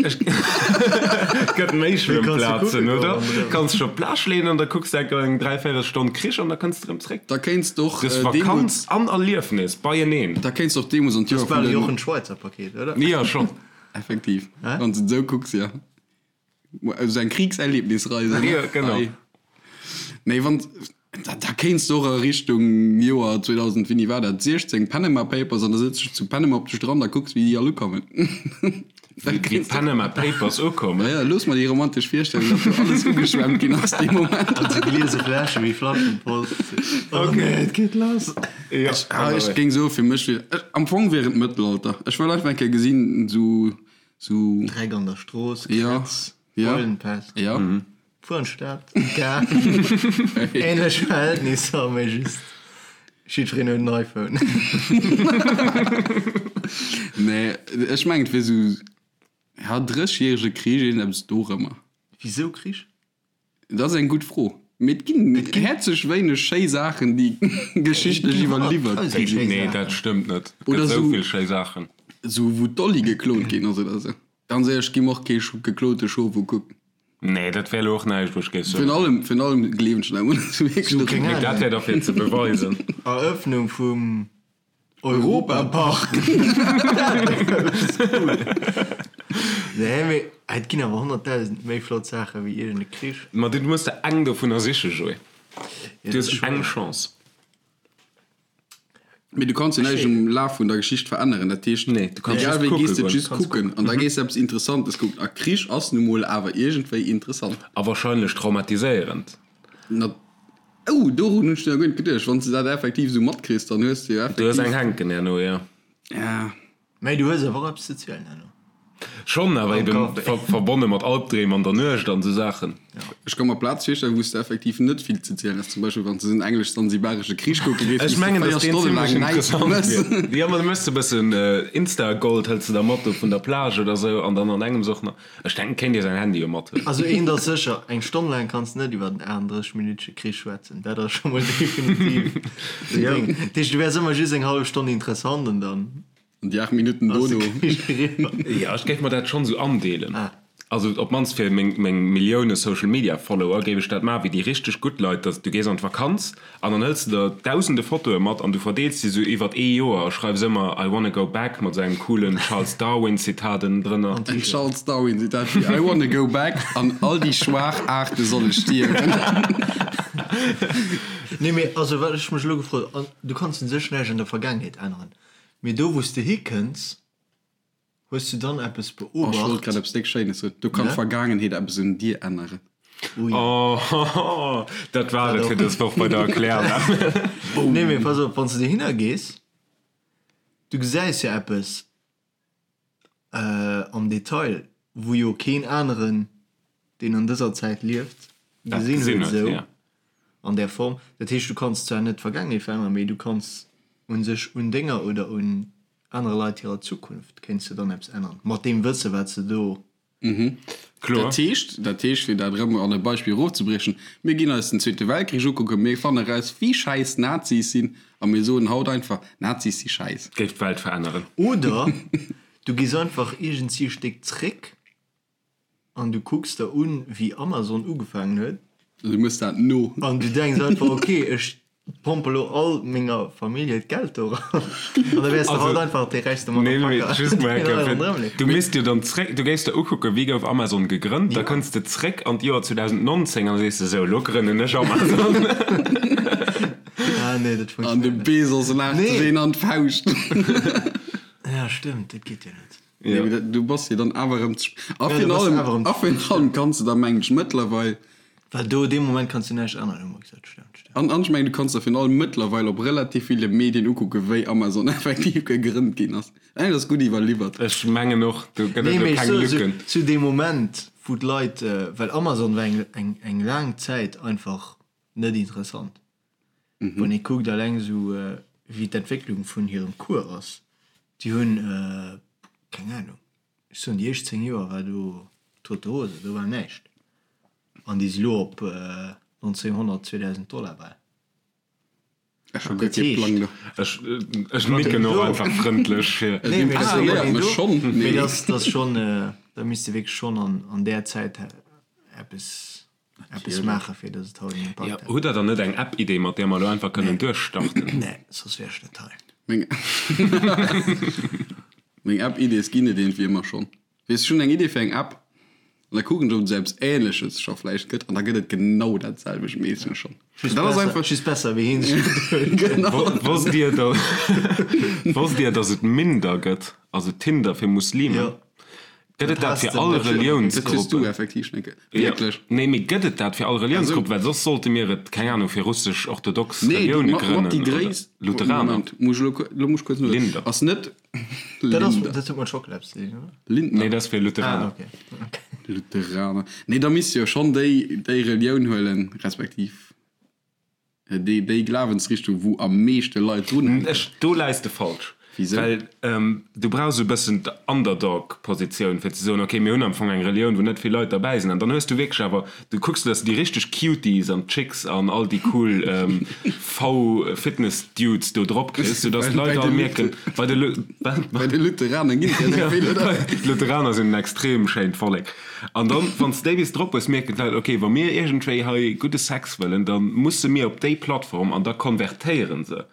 Speaker 3: gëtt méi Schwëmmplazen, oder? Kanns dech op d'Plage leeën an da kucks de enker eng dräivéierel Stonn Krich an da kënns de erëm zréck.
Speaker 2: Da kéints de och
Speaker 3: Du hues Vakanz an Erliefnis beieneen.
Speaker 2: Da kéints de och deemools an
Speaker 1: d'Joer vun den. Dat ass bal e Jochen Schweizer Paket, oder?
Speaker 3: Jo, schonn.
Speaker 2: Effektiv, wann s de et esou kucks, jo. Esou eng Kriegserlebnisreise, ne?
Speaker 3: Jo, genau.
Speaker 2: Nee, wann, da, da kéints de och a Richtung Joer 2000, wéini war dat, 16, Panama Papers, an da sëtz dech zu Panama op de Strand a kucks, wéi déi all ukommen.
Speaker 3: Wéi d'Panama Papers ukommen?
Speaker 2: Ja, looss mer déi romantesch Virstellung, datt do alles ugeschwemmt ginn ass dee Moment.
Speaker 1: An sou gliese Fläsche wéi Flaschenpost. Oh nee, et geet lass.
Speaker 3: Jo,
Speaker 2: Ech, ah, ech géing soen, fir mech wier, ech, am Fong wier et Mëttelalter. Ech wëll einfach eng Kéier gesinn, sou, Sou.
Speaker 1: Dreck an der Strooss, Krätz, Beulenpest.
Speaker 2: Ja.
Speaker 1: Fuer an d'Stad, Gare. Ähnlech Verhältnisser, mee just jiddwereen huet en iPhone.
Speaker 2: Nee, ech mengen et wier sou, ja, Drëssegjärege Krich, iergendeppes dorëmmer.
Speaker 1: Wisou Krich?
Speaker 2: Dat ass eng gutt Fro. Mee et ginn häerzlech wéineg schéi Saachen, déi geschichtlech iwwerliwwert gi
Speaker 3: sinn. Nee, dat stëmmt net. Et gëtt esou vill schéi Saachen.
Speaker 2: Esou wou d'Dolly geklont ginn ass oder esou. Ganz éierlech, gi mer och kee geklote Schof ukucken.
Speaker 3: Nee, dat wär elo och näischt, wou ech géif
Speaker 2: soen. Virun allem, virun allem gleewen ech net
Speaker 3: un. Mee dat wär da fir ze beweisen.
Speaker 1: Eröffnung vum Europapark! Nee, mee et ginn awer 100.000 méi flott Saache wéi iergend e Krich.
Speaker 3: Ma du muss der eng dovunner sichen, Joé. Du hues eng Chance.
Speaker 2: Mee du kanns jo näischt um Laf vun der Geschicht veränneren. Dat heescht,
Speaker 3: Nee, du kanns
Speaker 2: egal
Speaker 3: just
Speaker 2: wéi, gees
Speaker 3: kucke
Speaker 2: de just
Speaker 3: goen.
Speaker 2: kucken an da gees de eppes Interessantes kucken. A Krich ass nu mol awer iergendwéi interessant.
Speaker 3: A wahrscheinlech traumatiséierend.
Speaker 2: Na. Oh, dorun hunn ech nach guer net geduecht. Wann s de dat effektiv esou matkriss, dann hues de jo
Speaker 3: Du hues
Speaker 2: effektiv.
Speaker 3: eng hänken herno, jo.
Speaker 2: Ja.
Speaker 1: Mä du hues awer och eppes ze zielen herno.
Speaker 3: Schonn, awer eben verbonne mat Albdreem an der Nuecht an esou Saachen.
Speaker 2: Ech ka mer Plaze virstellen, wou s de effektiv net vill ze zielen häss. Zum Beispill wann s de en englesch-sansibaresche Krich kucke géifs,
Speaker 3: wou s de 4 Stonne laang näischt méchs. Jo, ma du méchs e bëssen Insta-Gold, hëls de da mat do vun der Plage oder esou an dann an engems och nach, ech denken, kéint ee säin Handy jo mathuelen.
Speaker 1: Also eent ass sécher, eng Stonn laang kanns de net iwwer en 38 minütege Krich schwätzen, dat ass scho mol definitiv den Ding. Dat heescht, du wäers ëmmer just eng hallef Stonn interessant an dann.
Speaker 2: An déi 8 Minutten dono.
Speaker 3: Jo, ech géif mer dat schonn esou andeelen. Also op d'mannst fir meng Millioune Social Media Follower géif ech dat maachen, wéi déi richteg gutt Leit, dass du gees an d'Vakanz an dann hëls de der dausende Fotoe mat an du verdeels déi esou iwwert ee Joer a schreifs ëmmer I wanna go back mat esou engem coolen Charles Darwin Zitat ënnendrënner.
Speaker 2: En Charles Darwin Zitat wéi I wanna go back an all déi schwaach Aarte solle stierwen.
Speaker 1: Nee, mee also wat ech mech elo gefrot, an du kanns un sech näischt an der Vergaangenheet änneren, Mee do wou s de hikënns, hues du dann eppes
Speaker 2: beobacht? Oh, ech wollt grad eppes déck Schéines soen. Do kann d'Vergaangenheet eppes un dir änneren.
Speaker 3: Ui. Oh, dat war et fir dës Woch bei der Erklärwelt.
Speaker 1: Nee, mee pass op, wann s de dohinner gees, du gesäis jo eppes am Detail, wou jo keen aneren, deen an dëser Zäit lieft, gesinn huet esou an där Form. Dat heescht, du kanns zwar net d'Vergaangenheet veränneren, mee du kanns u sech un denger oder un anere Leit hirer Zukunft kéints de dann eppes änneren, mat deem Wësse wat s de do
Speaker 2: Kloer. Dat heescht, dat heescht, fir dat erëm an e Beispill erofzebriechen, mir ginn eis den Zweete Weltkrich ukucken, mir fanne eraus, wéi schäiss d'Nazis sinn, a mir soen haut einfach, Nazis si schäiss.
Speaker 3: Géif d'Welt veränneren.
Speaker 1: Oder du gees einfach iergendsi e Stéck zréck an du kucks der un, wéi Amazon ugefaangen huet.
Speaker 2: An du mëss dat no.
Speaker 1: An du denks einfach, ok, ech Pompe lo all menger Famillje d'Geld do eran an da wäers de haut einfach dee räichste
Speaker 3: Motherfucker. Du misst jo dann zréck, du géifs der ukucken, wéi gouf Amazon gegrënnt, da kënns de zréck an d'Joer 2019 an da sees de, sou, lo grënnen ech Amazon.
Speaker 1: Ah nee, dat
Speaker 2: funktionéiert net. An de Bezos laacht sech een an d'Fauscht.
Speaker 1: Ja stëmmt, dat geet jo net.
Speaker 2: Nee, mee du bass jo dann awer erëm ze spéit. A virun allem, a virun allem kanns de da mengen ech mëttlerweil.
Speaker 1: Well do, dee Moment kanns du näischt änneren, hu mer gesot. Stemmt,
Speaker 2: stemmt. An, an ech mengen, du kanns der virun allem mëttlerweil op relativ ville Medien ukucken, wéi Amazon effektiv gegrënnt ginn ass. Ech mengen, dat ass gutt iwwerliwwert.
Speaker 3: Ech mengen och, do gëtt et
Speaker 1: elo
Speaker 3: keng
Speaker 1: soe,
Speaker 3: Lücken.
Speaker 1: Zu deem Moment, wou d'Leit, well Amazon war eng, eng, eng laang Zäit einfach net interessant. Wann ee kuckt alleng esou wéi d'Entwécklung vun hirem Cours ass, déi hunn, keng Ahnung, ech soen déi éischt 10 Joer war do tote Hose, do war näischt an déi si lo op 1900, 2000 Dollar bal.
Speaker 2: Ech hu guer kee Plang do.
Speaker 3: Ech nicken och einfach frëndlech
Speaker 2: fir. Nee, mee dat impressionéiert mech schonn,
Speaker 1: mee dat ass schonn, da misst de wierklech schonn an där Zäit eppes Eppes maachen, fir dass et haut en
Speaker 3: Impakt hätt. Hutt der dann net eng App-Idee, mat där mer elo einfach kënnen duerchstarten?
Speaker 1: Nee, soss wier ech net hei.
Speaker 2: Meng Meng App-Idees ginn et iergendwéi ëmmer schonn. Weess, ech hunn eng Idee fir eng App an da kucken ech, ob et esou eppes Ähnleches scho vläicht gëtt an da gëtt et genau dat selwecht meeschtens schonn.
Speaker 1: Just Dat ass besser, einfach. just besser wéi hien sech geduecht huet.
Speaker 3: Genau. Wosst Dir, wosst Dir, dass et Minder gëtt, also Tinder fir Muslimen? Jo. Gëtt et dat fir all Reliounsgruppen? Nee, mee gëtt et dat fir all Reliounsgruppen? Well soss sollte mir et, keng Anung, fir russesch-orthodox Relioune grënnen oder Lutheraner.
Speaker 2: Linder.
Speaker 1: Dat huet mat Schockela eppes ze dinn, oder?
Speaker 3: Nee, dat ass fir Lutheraner.
Speaker 2: Lutheraner. Nee, da misst jo schonn déi Relioun huelen, respektiv. Déi, déi Glawensrichtung, wou am meeschte Leit drun hänken.
Speaker 3: Ech, do läis de falsch.
Speaker 2: Wisou?
Speaker 3: Well du brauchs e bëssen d'Underdog-Positioun, fir ze soen, ok, mir hunn am Fong eng Relioun, wou net vill Leit derbäi sinn. An dann hues du wierklech awer, du kucks, dass du déi richteg Cuties an d'Chicks an all déi cool V-Fitness-Dudes do drop kriss, soudass d'Leit all mierken, bei de Lu, wat?
Speaker 2: Bei de Lutheraner ginn et der esou vill, oder?
Speaker 3: D'Lutheraner sinn en extrem schéint Vollek. An dann, wann s de déi bis drop hues, mierken d'Leit, ok, wa mir iergendwéi hei gudde Sex wëllen, da musse mir op déi Plattform an da konvertéiere se.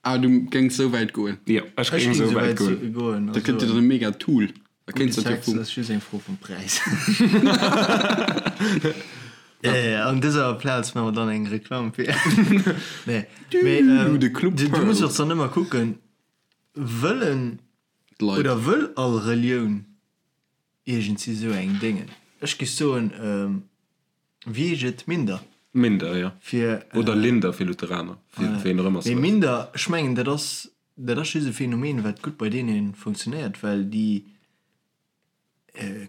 Speaker 2: Ah, du géings esou wäit goen?
Speaker 3: Jo, ech géing esou wäit goen.
Speaker 2: Dat gëtt dir dann e mega Tool.
Speaker 1: Da kéints de dat jo vum. Gudde Sex ass just eng Fro vum Präis. An dëser Plaz maache mer dann eng Reklamm fir. Nee, mee du muss och dann ëmmer kucken, wëllen oder wëll all Relioun Iergendsi sou eng Déngen. Ech géif soen, wéi heescht et, Minder?
Speaker 3: Minder, jo.
Speaker 1: Fir.
Speaker 3: Oder Linder fir Lutheraner, fir ween och ëmmer
Speaker 1: se. Mee Minder, ech mengen, dat ass, dat ass just e Phänomen, wat gutt bei deene funktionéiert, well déi.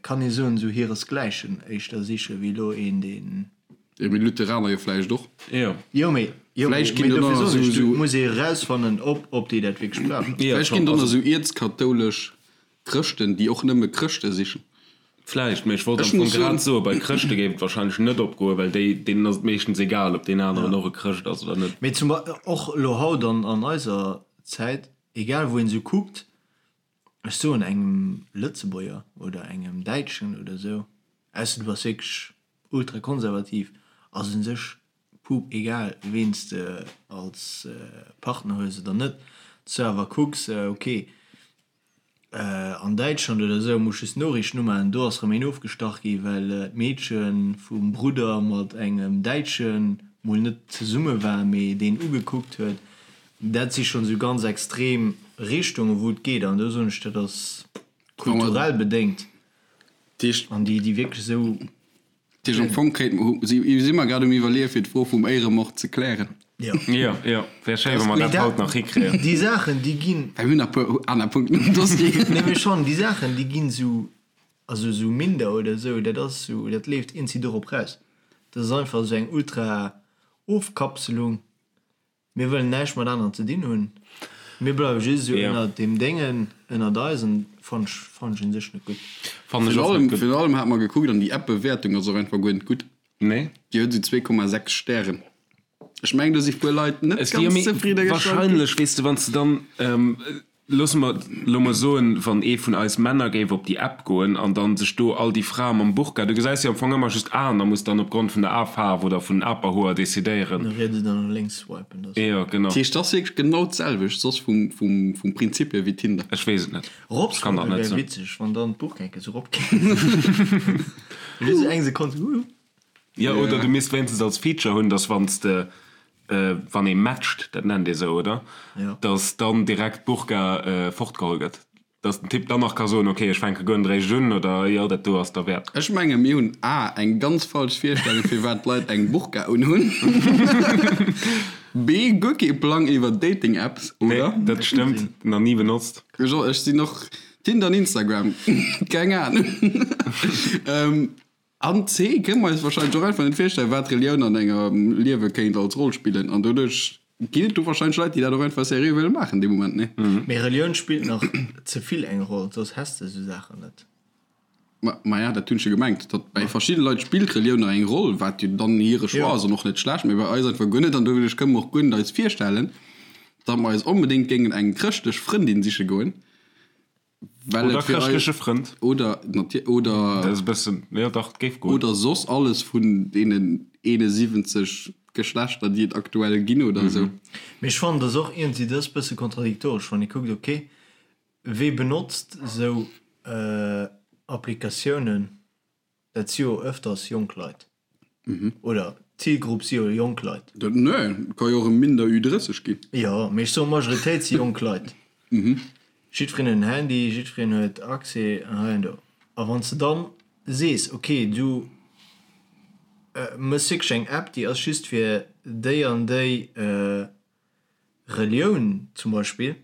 Speaker 1: Kann ee soen, esou hiresgläichen éischter siche wéi elo een, deen.
Speaker 2: Jo, mee Lutheraner jo vläicht och.
Speaker 3: Jo.
Speaker 1: Jo, mee, jo,
Speaker 2: Vläicht
Speaker 1: mee
Speaker 2: ginn do
Speaker 1: dofir
Speaker 2: nach
Speaker 1: soen
Speaker 2: esou,
Speaker 1: ech, du
Speaker 2: esou.
Speaker 1: muss ee erausfannen, ob, ob déi dat wierklech brauchen.
Speaker 3: Jo,
Speaker 2: Vläicht
Speaker 3: schonn,
Speaker 2: ginn do nach
Speaker 3: also.
Speaker 2: esou ierz-kathoulesch Chrëschten, déi och nëmme Chrëschte sichen.
Speaker 3: Vläicht, mee ech wollt am
Speaker 2: Ech
Speaker 3: Fong
Speaker 2: muss soen.
Speaker 3: grad soen, bei Chrëschte géif et wahrscheinlech net opgoen, well déi, deenen ass et meeschtens egal, ob deen aneren och e Chrëscht ass oder net.
Speaker 1: Mee zum Bei, och elo haut an, an eiser Zäit, egal wou een esou kuckt, Ech soen engem Lëtzebuerger oder engem Däitschen oder esou, ausser du bass wierklech ultrakonservativ, ass un sech pup egal ween s de als Partner hues oder net. Dass du awer kucks, ok an Däitschland oder esou muss just d'Noriichten umaachen, do ass erëm een ofgestach gi well d'Meedche vum Brudder mat engem Däitsche mol net zesumme war, mee deen ugekuckt huet. Dat si schonn esou ganz extrem Richtungen, wou et geet. An do soen ech, dat ass kulturell bedéngt. An déi, déi wierklech esou.
Speaker 2: Dat heescht, am Fong kéint mer, si mer grad um Iwwerleeën, fir d'Fro vum Éieremord ze klären.
Speaker 1: Jo.
Speaker 3: Jo, jo, wär schéi, wa mer dat haut nach hikréien.
Speaker 1: Déi Saachen, déi ginn.
Speaker 2: Well mir hunn nach e puer aner Punkten um Dossier.
Speaker 1: Nee, mee schonn, déi Saachen, déi ginn esou, also esou minder oder esou, dat ass esou, dat leeft eenzi dorop raus. Dat ass einfach esou eng Ultra-Ofkapselung. Mir wëllen näischt mat aneren ze dinn hunn. Mir bleiwe just esou ënnert deem Déngen, ënnert eis an fannt ech, fannt ech un sech net gutt.
Speaker 3: Fannen ech och net gutt.
Speaker 2: Virun allem hat mer gekuckt an déi App-Bewäertung ass och einfach guer net gutt.
Speaker 3: Nee.
Speaker 2: Déi huet esou 2,6 Stären. Ech mengen do si puer Leit net ganz zefridde gestallt ginn.
Speaker 3: Wahrscheinlech, weess de, wann s de dann Loosse mer elo mol soen, wann ee vun eis Männer géif op déi App goen an dann sech do all déi Frae mam Burka, du gesäis jo am Fong ëmmer just Aen a muss dann opgrond vun der Afaarf oder vun den Aperhoer decidéieren.
Speaker 1: No riets oder no lénks swipen,
Speaker 3: dat. Jo, genau.
Speaker 2: Dat heescht, dat ass wierklech genau d'selwecht soss vum, vum, vum Prinzip hier wéi Tinder.
Speaker 3: Ech weess et net.
Speaker 1: Erop
Speaker 3: Ech kann dat
Speaker 1: swipen
Speaker 3: net
Speaker 1: wär
Speaker 3: soen.
Speaker 1: witzeg, wann dann d'Burka enke sou erop kéim. Just eng Sekonn sou, huuh.
Speaker 3: Jo, oder du misst wéinstens als Feature hunn, dass wann s de, wann ee matcht, dat nennt ee sou, oder? Dass dann direkt d'Burka fortgeholl gëtt. Dass den Typ dann nach ka soen, ok, ech fänke guer net eréischt un, oder jo, dat do ass derwäert.
Speaker 2: Ech menge mir hunn a eng ganz falsch Virstellung firwat d'Leit eng Burka unhunn, b guer kee Plang iwwer Dating-Apps, oder?
Speaker 3: Nee, dat stëmmt, nach ni benotzt.
Speaker 2: Ech sinn och Tinder an Instagram, keng Ahnung. An C, kënne mer eis wahrscheinlech och einfach net virstellen, wat Relioun an engem Liewe kéint als Roll spillen. An doduerch ginn et do wahrscheinlech Leit, déi dat och einfach seriö wëlle maachen dee Moment, nee?
Speaker 1: Mee Relioun spillt nach ze vill eng Roll, soss häss de esou Saachen net.
Speaker 2: Ma, maja, dat hunn ech jo gemengt, datt bei verschidde Leit spillt Relioun nach eng Roll, wat jo dann hire Choix ass an och net schlecht, mee bei eis einfach guer net. An doduerch kënne mer och guer net eis virstellen, datt mer eis onbedéngt géingen eng chrëschtlech Frëndin siche goen. Well
Speaker 3: Oder
Speaker 2: et fir eis,
Speaker 3: chrëschtleche Frënd.
Speaker 2: oder natier, oder.
Speaker 3: Dat ass e bëssen, jo dach, et géif goen.
Speaker 2: Oder soss alles vun deenen 71 Geschlechter, déi et aktuell ginn oder esou.
Speaker 1: Mee ech fannen, dat ass och iergendwéi, dat ass e bësse kontradiktoresch, wann ee kuckt, ok, wee benotzt esou Applikatiounen? Dat si jo öfters jonk Leit. Oder d'Zilgrupp si jo jonk Leit.
Speaker 2: Dat, nee, et ka jo och e minder Ü30 ginn.
Speaker 1: Jo, mee ech soen, d'Majoritéit si jonk Leit. Jiddwereen huet en Handy, jiddwereen huet Accès hei an do. A wann s de dann sees, ok, du méchs wierklech eng App, déi ass just fir déi an déi Relioun zum Beispill,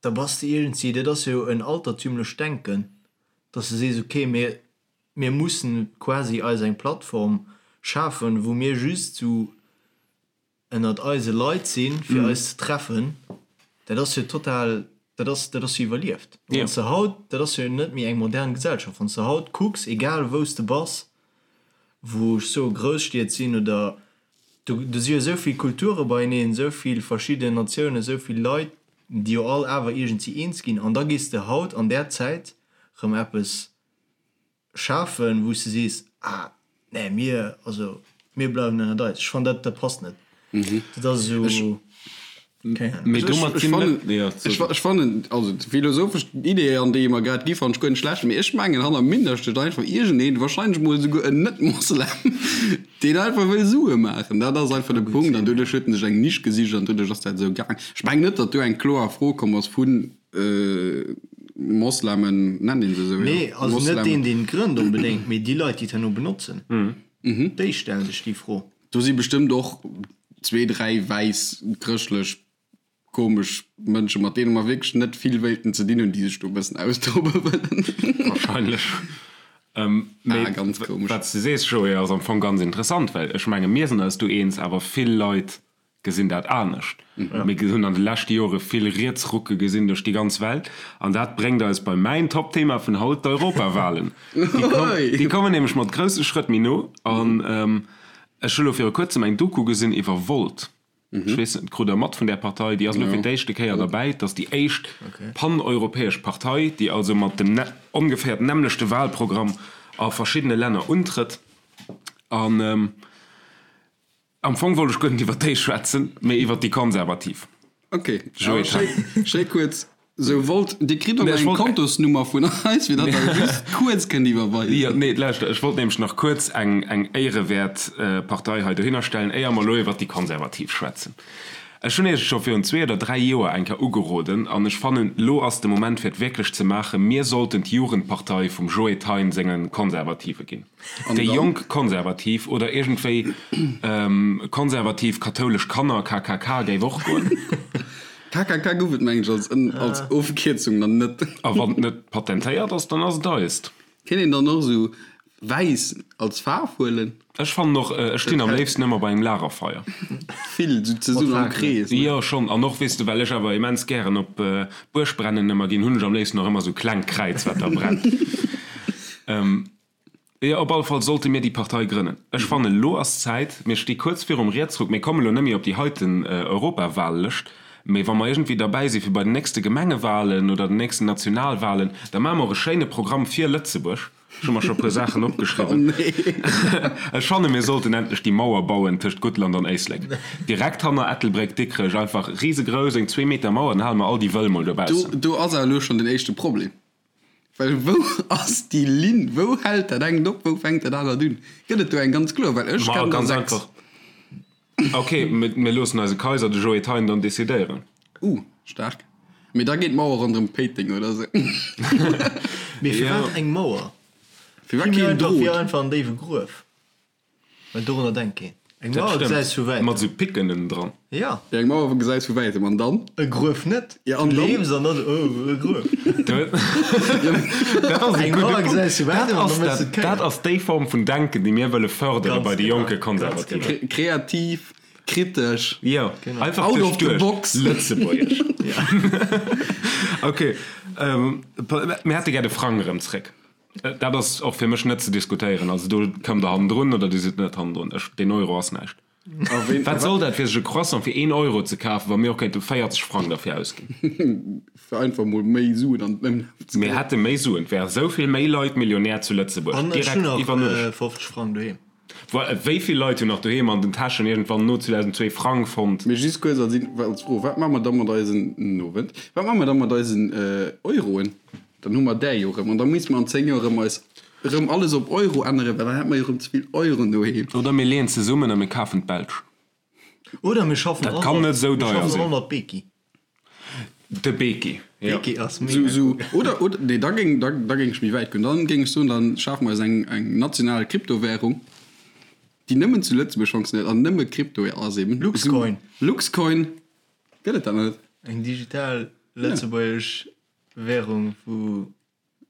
Speaker 1: da bass de iergendwéi, dat ass jo en altertümlecht Denken, dass de sees, okay, mir, mir mussen quasi eis eng Plattform schafen, wou mir just sou ënnert eise Leit sinn, fir eis ze treffen. Dat ass jo total, dat ass, dat ass jo iwwerlieft. Wann s de haut, dat ass jo net méi eng modern Gesellschaft, wann s de haut kucks, egal wou s de bass, wou ech soe Grousstied sinn oder do, do si jo esou vill Kulture beieneen, esou vill verschidden Natiounen, esou vill Leit, déi jo all awer iergendwéi eens ginn an da gees de haut an där Zäit rëm eppes schafen, wou s de sees, ah nee, mir, also mir bleiwen ënnert eis. Ech fannen dat, dat passt net. Dat ass esou, keng Ahnung.
Speaker 3: Mee domat
Speaker 2: Ech
Speaker 3: sinn
Speaker 2: fannen,
Speaker 3: net, jo,
Speaker 2: ech, ech fannen, also d'philosophesch Idee, an déi mer grad gi fannen ech guer net schlecht, mee ech mengen hanner Minder steet einfach iergendeen, wahrscheinlech mol esouguer en Net-Moslem, Deen einfach wëll Sue maachen, dat ass einfach de Punkt. An doduerch huet en sech eng Nisch gesicht an doduerch ass dat esou gaang. Ech mengen net, datt do eng kloer Fro komm ass vu Moslemen, nennt een se esou? Jo,
Speaker 1: Nee, also net
Speaker 2: Moslemen.
Speaker 1: deen, deen et grënnt onbedéngt, mee déi Leit, déi et herno benotzen, déi stellen sech déi Fro.
Speaker 2: Do si bestëmmt och zwee, dräi wäiss chrëschtlech. komesch Mënsche mat deene mer wierklech net vill wéilten ze dinn hunn, déi sech do e bëssen austobe wëllen.
Speaker 3: Wahrscheinlech. Mee
Speaker 2: ah, ganz komesch.
Speaker 3: Wat s de sees, Joé, ass am Fong ganz interessant, well ech menge mir sinn eis do eens, awer vill Leit gesinn dat anescht. Mir hunn an de leschte Jore vill Rietsrucke gesinn duerch déi ganz Welt an dat bréngt eis bei mäin Top-Thema vun haut, d'Europawahlen. Déi kommen nämlech mat grousse Schrëtt méi no an ech hu lo viru kuerzem eng Doku gesinn iwwer Volt. Ech weess net, krut der mat vun där Partei? Déi ass elo fir d'éischte Kéier derbäi. Et ass déi éischt paneuropäesch Partei, déi also mat dem ongeféier nämmlechte Wahlprogramm a verschiddene Länner untrëtt. An am Fong wollt ech guer net iwwer déi schwätzen, mee iwwer déi Konservativ.
Speaker 2: Ok, awer schéi, schéi kuerz. Sou wollt, Dir kritt och eng Kontosnummer vun eis, fir datt Der just kuerz kënnt iwwerweisen.
Speaker 3: Jo, nee, lauschter, ech wollt nämlech nach kuerz eng, eng éierewäert Partei hei dohinner stellen, éier mer elo iwwert déi Konservativ schwätzen. Ech hunn Iech et scho virun zwee oder dräi Joer eng Kéier ugeroden an ech fannen, elo ass de Moment, fir et wierklech ze maachen, Mir sollten d'Jugendpartei vum Joe Thein senge Konservative ginn. Déi Jonk Konservativ oder iergendwéi konservativ kathoulesch Kanner, KKK, géif och goen.
Speaker 2: KKK gouf et mengen ech als als Ofkierzung nach net.
Speaker 3: A wann et net patentéiert ass, dann ass et eist.
Speaker 2: Kéint een dann och esou wäiss als Faarf huelen?
Speaker 3: Ech fannen och, ech stinn am léifsten ëmmer bei engem Lagerfeier.
Speaker 2: Vill esou zesummen am Krees,
Speaker 3: ne? Jo schonn, an och weess de, well ech awer immens gären op Buergbrennen ëmmer ginn, hunn ech am léifsten och ëmmer esou klengt Kräiz wat da brennt. Jo, op alle Fall sollte mir déi Partei grënnen. Ech fannen, elo ass d'Zäit. Mir sti kuerz virum Rietsruck. Mir kommen elo net méi op déi heiten Europawahllëscht, mee wa mer iergendwéi derbäi si fir bei den nächste Gemengewahlen oder den nächsten Nationalwahlen, da maache mer och e schéine Programm fir Lëtzebuerg. Ech hu mer scho e puer Saachen opgeschriwwen. Ech fanne mir sollten endlech déi Mauer bauen tëscht Guttland an Éislek. Direkt hanner Ettelbréck, Dikrech, einfach risegrouss, eng zweeMeter Mauer, dann hale mer all déi Wëll mol dobaussen.
Speaker 2: Do ass awer elo schonn den éischte Problem. Well wou ass déi Linn? Wou hält dat engt op, wou fänkt dat anert un? Gëtt et do eng ganz kloer? Well ech
Speaker 3: kennen der 6. Ok, mir loossen eise Kaiser, de Joé Thein, dann decidéieren.
Speaker 2: Uh, staark. Mee da geet d'Mauer ronderëm Péiteng oder sou.
Speaker 1: Mee firwat eng Mauer?
Speaker 2: Firwat keen Drot?
Speaker 1: Fir einfach en déiwe Gruef. Well dorunner denkt keen. Eng Mauer gesäis vu wäitem.
Speaker 3: Mat sou Picken ënnen dran.
Speaker 1: Ja.
Speaker 2: Ja, eng Mauer gesäis vu wäitem. An dann?
Speaker 1: E Gruef net.
Speaker 2: Ja, an
Speaker 1: dann?
Speaker 2: Du
Speaker 1: leefs an dann, oh, e Gruef.
Speaker 3: Dat ass e
Speaker 1: Eng
Speaker 3: gudde
Speaker 1: Mauer
Speaker 3: Punkt.
Speaker 1: gesäis vu
Speaker 3: Dat
Speaker 1: wäitem an
Speaker 3: ass
Speaker 1: da méchs du
Speaker 3: dat,
Speaker 1: d'Kéier.
Speaker 3: dat ass déi Form vun Denken, déi mir wëlle fërdere
Speaker 1: Ganz
Speaker 3: bei de
Speaker 1: genau,
Speaker 3: jonke
Speaker 1: ganz
Speaker 3: Konservativen.
Speaker 1: genau.
Speaker 2: Kreativ, kritesch.
Speaker 3: Jo,
Speaker 1: Genau.
Speaker 3: einfach
Speaker 2: Out of the
Speaker 3: duerchduecht.
Speaker 2: box.
Speaker 3: Lëtzebuergesch. Ok, mir hätte gär de Frang erëm zréck. Dat ass och fir mech net ze diskutéieren. Also do kommt der hannendrun oder Dir sidd net hannendrun. Ech, deen Euro ass näischt. Wat soll dat fir sech e Croissant fir een Euro ze kafen, wa mir och kéinte 40 Frang derfir ausginn?
Speaker 2: Fir einfach mol méi Suen an den Ëmlaf ze
Speaker 3: Mir
Speaker 2: kréien.
Speaker 3: hätte méi Suen, et wäre sou vill méi Leit Millionär zu Lëtzebuerg,
Speaker 1: An ech
Speaker 3: direkt
Speaker 1: hunn nach
Speaker 3: iwwer Nuecht.
Speaker 1: 50 Frang doheem.
Speaker 3: Voilà, wéi vill Leit hunn nach doheem an den Täschen iergendwann no 2002 Frang fonnt?
Speaker 2: Mee just kuerz als als Fro, Wat maache mer da mat eisen, Nowend, wat maache mer da mat eisen Euroen? Dann hu mer där jo erëm. An da misste mer an 10 Joer erëm eis erëm alles op Euro änneren, well dann hätte mer jo erëm ze vill Euroen doheem.
Speaker 3: Oder mir leeën zesummen a mir kafen d'Belsch.
Speaker 1: Oder mir schaffen
Speaker 3: Dat
Speaker 1: all
Speaker 3: kann
Speaker 1: mat,
Speaker 3: net esou
Speaker 1: mir
Speaker 3: deier
Speaker 1: schaffen
Speaker 3: sinn.
Speaker 1: all mat Beki.
Speaker 3: De Beki, jo.
Speaker 1: Beki ass
Speaker 2: Sou,
Speaker 1: mega
Speaker 2: sou,
Speaker 1: gutt.
Speaker 2: oder, oder, nee, da géing, da, da géing ech méi wäit goen. Dann géing ech soen, dann schafe mer eis eng, eng national Kryptowährung, déi nëmmen zu Lëtzebuerg fonctionnéiert an nëmme Krypto ass eben.
Speaker 1: Luxcoin.
Speaker 2: Sou, Luxcoin, gëtt et dat nach net?
Speaker 1: Eng digital lëtzebuergesch Währung wou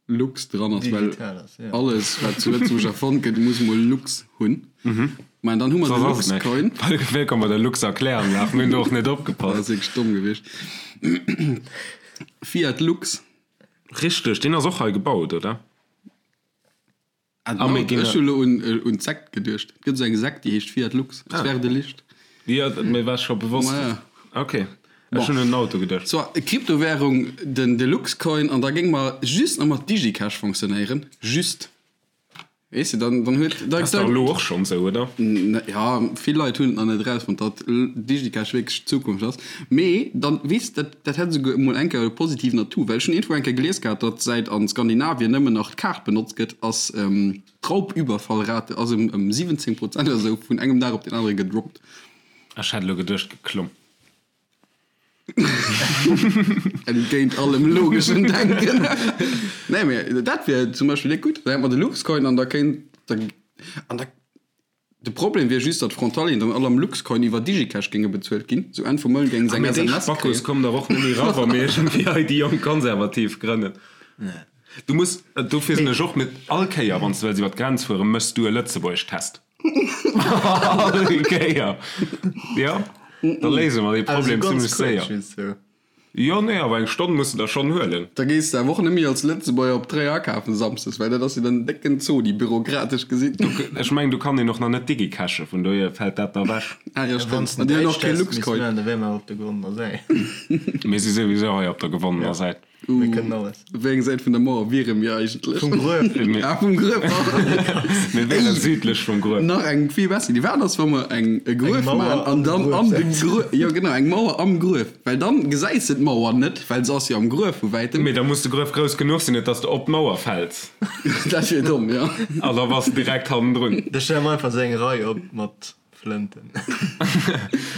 Speaker 2: Lux dran ass, well
Speaker 1: digital ass, ja.
Speaker 2: alles wat zu Lëtzebuerg erfonnt gëtt muss mol Lux hunn. Mä dann hu mer de
Speaker 3: Soss ass et
Speaker 2: Luxcoin.
Speaker 3: näischt. Wéllkomm bei der Lux-Erkläranlag, mir hunn do och net
Speaker 2: Dat
Speaker 3: opgepasst.
Speaker 2: ass wierklech domm gewiescht. Fiat Lux.
Speaker 3: Richteg, deen ass och hei gebaut, oder?
Speaker 2: Ah, mir ginn. Ech hu lo un un d'Sekt geduecht. Et gëtt esou eng Sekt, déi heescht Fiat Lux. Es werde Licht.
Speaker 3: Jo, mir war scho bewosst.
Speaker 2: Ma ja.
Speaker 3: Ok, ech hunn un den Auto geduecht.
Speaker 2: Soit, Kryptowährung, den de Luxcoin, an da géing mer just nach mat DigiCash fonctionnéieren. Just. Weess de, dann dann huet.
Speaker 3: Dat ass dach elo och schonn esou, oder?
Speaker 2: Ja, vill Leit hunn et nach net erausfonnt, datt DigiCash wierklech d'Zukunft ass. Mee dann, weess de, dat dat hätt esouguer emol eng Kéier e positiven Atout, well ech hunn iergendwou eng Kéier gelies gehat, datt säit a Skandinavien nëmmen nach d'Kaart benotzt gëtt, ass d'Raubüberfallrate ass ëm ëm 17 Prozent oder esou vun engem Dag op deen anere gedroppt.
Speaker 3: Ech hätt elo geduecht, geklomm.
Speaker 2: Entgéint allem logeschen Denken. Nee, mee dat wier zum Beispill gutt. Da hätt mer de Luxcoin an da kéint, an da. De Problem wier just, datt d'Frontalieren dann all am Luxcoin iwwer Digicash géinge bezuelt ginn. Sou Enn vum Mount géinge se
Speaker 3: eng
Speaker 2: Mee
Speaker 3: déi SMS
Speaker 2: Spackos
Speaker 3: kréien. kommen dach och net méi ra wa mir iergendwéi hei déi jonk Konservativ grënnen. Du muss, dofir sinn ech och mit, all Kéier wann s de wëlls iwwer d'Grenz fueren, méchs du e Lëtzebuergesch-Test. All Kéier. Jo, da léise mer dee Problem zimmlech séier. Jo, nee, awer eng Stonn muss de der schonn huelen.
Speaker 2: Da gees de awer och net méi als Lëtzebuerger op Tréier akafen samsdes, well dat ass jo dann en décken Zodi, bürokratesch gesinn.
Speaker 3: Ech mengen, do kann een och nach net digicashen, vun dohier fält dat da ewech.
Speaker 2: Ah jo, stëmmt. An déi hunn och kee Luxcoin.
Speaker 1: Da wäre mer op der gewonnener Säit.
Speaker 3: Mir si souwisou hei op der gewonnener Säit.
Speaker 1: Mir kënnen alles.
Speaker 2: Op wéi eng Säit vun der Mauer wiere mir eigentlech?
Speaker 1: Vum Gruef.
Speaker 2: Ah, vum Gruef.
Speaker 3: Mir wiere südlech vum Gruef.
Speaker 2: Nach eng vill besser Iddi. Wat ass, wa mer eng e Gruef maachen an dann an de Gruef, jo genau, eng Mauer am Gruef, well dann gesäis de d'Mauer net, well se ass jo am Gruef vu wäitem.
Speaker 3: Mee da muss de Gruef grouss genuch sinn, net dass de op d'Mauer fäls.
Speaker 2: Dat wier domm, jo.
Speaker 3: An da bass de direkt hannendrun.
Speaker 1: Da stelle mer einfach esou eng Rei op mat Flënten.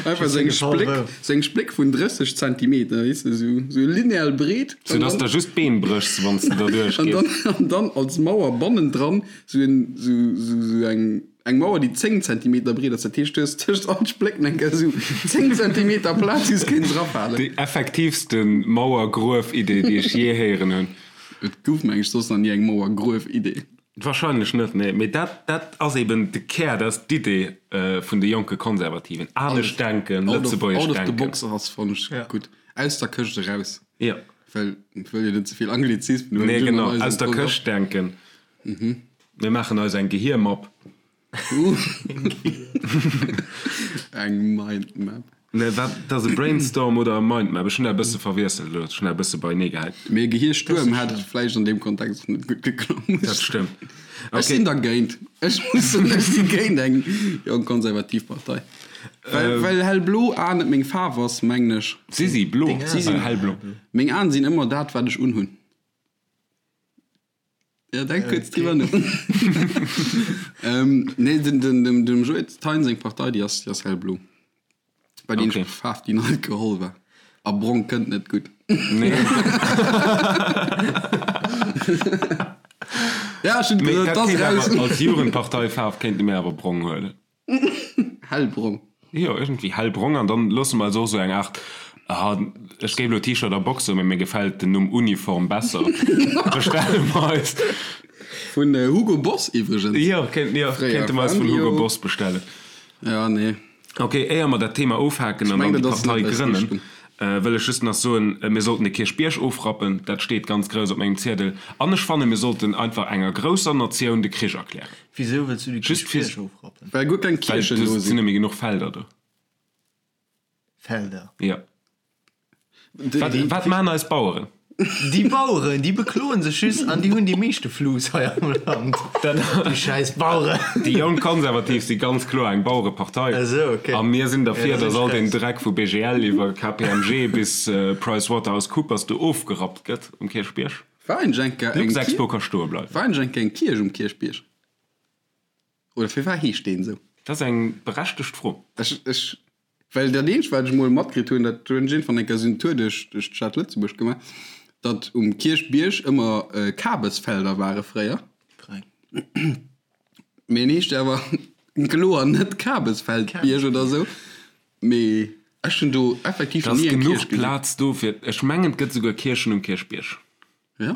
Speaker 2: Einfach sou eng Spléck, sou eng Spléck vun 30 Zentimeter, weess de, sou, sou lineal breet.
Speaker 3: Sou dass de just d'Been bréchs, wann s de derduerch
Speaker 2: An
Speaker 3: gees.
Speaker 2: dann, an dann als Mauer bannendran sou en, sou, sou, sou eng, eng Mauer, déi 10 Zentimeter breet ass. Dat heescht, du hues tëscht all Splécken eng Kéier sou 10 Zentimeter Plaz, wou s kéints erafalen.
Speaker 3: Déi effektiivste Mauer-Gruef-Idee, déi ech jee héieren hunn.
Speaker 2: Et gouf, meng ech, soss nach ni eng Mauer-Gruef-Idee.
Speaker 3: Wahrscheinlech net, nee. Mee dat, dat ass eben de Kär, dat ass d'Idee vun de jonke Konservativen. Anescht denken, lëtzebuergesch
Speaker 2: denken. Out of the
Speaker 3: box
Speaker 2: ass, fannen ech gutt. Aus der Këscht eraus.
Speaker 3: Jo.
Speaker 2: Well ech wëll jo net ze vill Anglizismen
Speaker 3: huelen. Nee, genau. Aus der Këscht denken. Mir maachen eis eng Gehiermapp.
Speaker 2: Eng Mindmap.
Speaker 3: Nee, wat, dat ass e Brainstorm oder e Mindmap? Ech hunn dat e bësse verwiesselt elo, ech hunn dat e bësse beienee gehäit.
Speaker 2: Mee e Gehierstuerm hätt vläicht an deem Kontext och net gutt geklongen.
Speaker 3: Dat stëmmt.
Speaker 2: Ech sinn dergéint. Ech muss soen, ech si géint eng jonk konservativ Partei. Well, well hellblo Aen net meng Faarf ass, mengen ech.
Speaker 3: Si si blo,
Speaker 2: Si sinn
Speaker 3: hellblo.
Speaker 2: Meng Aen sinn ëmmer dat, wat ech unhunn. Ja, denk kuerz driwwer no. ähm, nee, den, den, dem, dem Joe Thein seng Partei, déi ass, déi ass hellblo. Bei deem
Speaker 3: Okay.
Speaker 2: Faarf, déi net geholl war. A brong kënnt net gutt.
Speaker 3: Nee.
Speaker 2: Ja, ech hunn
Speaker 3: Mee
Speaker 2: gesot,
Speaker 3: dat
Speaker 2: dat ass
Speaker 3: kéint
Speaker 2: raus.
Speaker 3: awer als Jugendparteifaarf kéinte mir awer brong huelen.
Speaker 2: Hellbrong.
Speaker 3: Jo, iergendwéi hellbrong. An dann loosse mer eis och esou eng Aart, ah, ech géif elo T-Shirt a Boxer, mee mir gefält den Numm Uniform besser, bestelle mer eis.
Speaker 2: Vun Hugo Boss iwwregens.
Speaker 3: Jo, kéint, jo,
Speaker 2: Fréier
Speaker 3: kéinte mer eis vun Hugo
Speaker 2: Fabio.
Speaker 3: Boss bestellen.
Speaker 2: Ja, nee.
Speaker 3: Ok, éier mer dat Thema ofhaken
Speaker 2: Ech
Speaker 3: an dann
Speaker 2: mengen,
Speaker 3: déi
Speaker 2: dat ass
Speaker 3: Partei
Speaker 2: net eis
Speaker 3: grënnen,
Speaker 2: Richtung.
Speaker 3: wëll ech just nach soen, mir sollten de Kierchbierg ofrappen. Dat steet ganz grouss op mengem Ziedel. An ech fannen, mir sollten einfach enger grousser Natioun de Krich erklären.
Speaker 1: Wisou wëlls du de
Speaker 3: Just fir-
Speaker 1: Kierchbierg ofrappen?
Speaker 2: Well guer keng
Speaker 3: Well
Speaker 2: Kierchen
Speaker 3: do
Speaker 2: do
Speaker 3: sinn
Speaker 2: sinn.
Speaker 3: net méi genuch Felder do.
Speaker 1: Felder.
Speaker 3: Jo. Wat, wat maachen eis Baueren?
Speaker 1: Déi Baueren, déi bekloen sech just an déi hunn déi meeschte Fluss hei am Land. Déi schäiss Baueren.
Speaker 3: Déi Jonk Konservativ si ganz kloer eng Bauerepartei.
Speaker 1: Esou, ok.
Speaker 3: A mir sinn derfir,
Speaker 1: Ja, da
Speaker 3: datt
Speaker 1: sinn
Speaker 3: all
Speaker 1: ech
Speaker 3: deen
Speaker 1: raus.
Speaker 3: Dreck vu BGL iwwer KPMG bis PricewaterhouseCoopers do ofgerappt gëtt um Kierchbierg.
Speaker 2: War eigentlech eng Kéier eng
Speaker 3: Luxexpo ka stoe bleiwen.
Speaker 2: War eigentlech eng Kéier eng Kierch um Kierchbierg? Oder firwat heescht deen esou?
Speaker 3: Dat ass eng berechtegt Fro.
Speaker 2: Ech, ech, well dat eenzegt, wat ech emol matkritt hunn, dat hunn ech iergendwann eng Kéier esou en Tour duerch, duerch d'Stad Lëtzebuerg gemaach, datt um Kierchbierg ëmmer Kabesfelder ware fréier.
Speaker 1: Frei.
Speaker 2: Mee en heescht awer kloer net Kabesfeldbierg oder esou. Mee ech hunn do effektiv
Speaker 3: Da
Speaker 2: nach
Speaker 3: ass
Speaker 2: ni eng
Speaker 3: genuch
Speaker 2: Kierch gesinn.
Speaker 3: Plaz do fir, ech mengen et gëtt souguer Kierchen um Kierchbierg.
Speaker 2: Ja?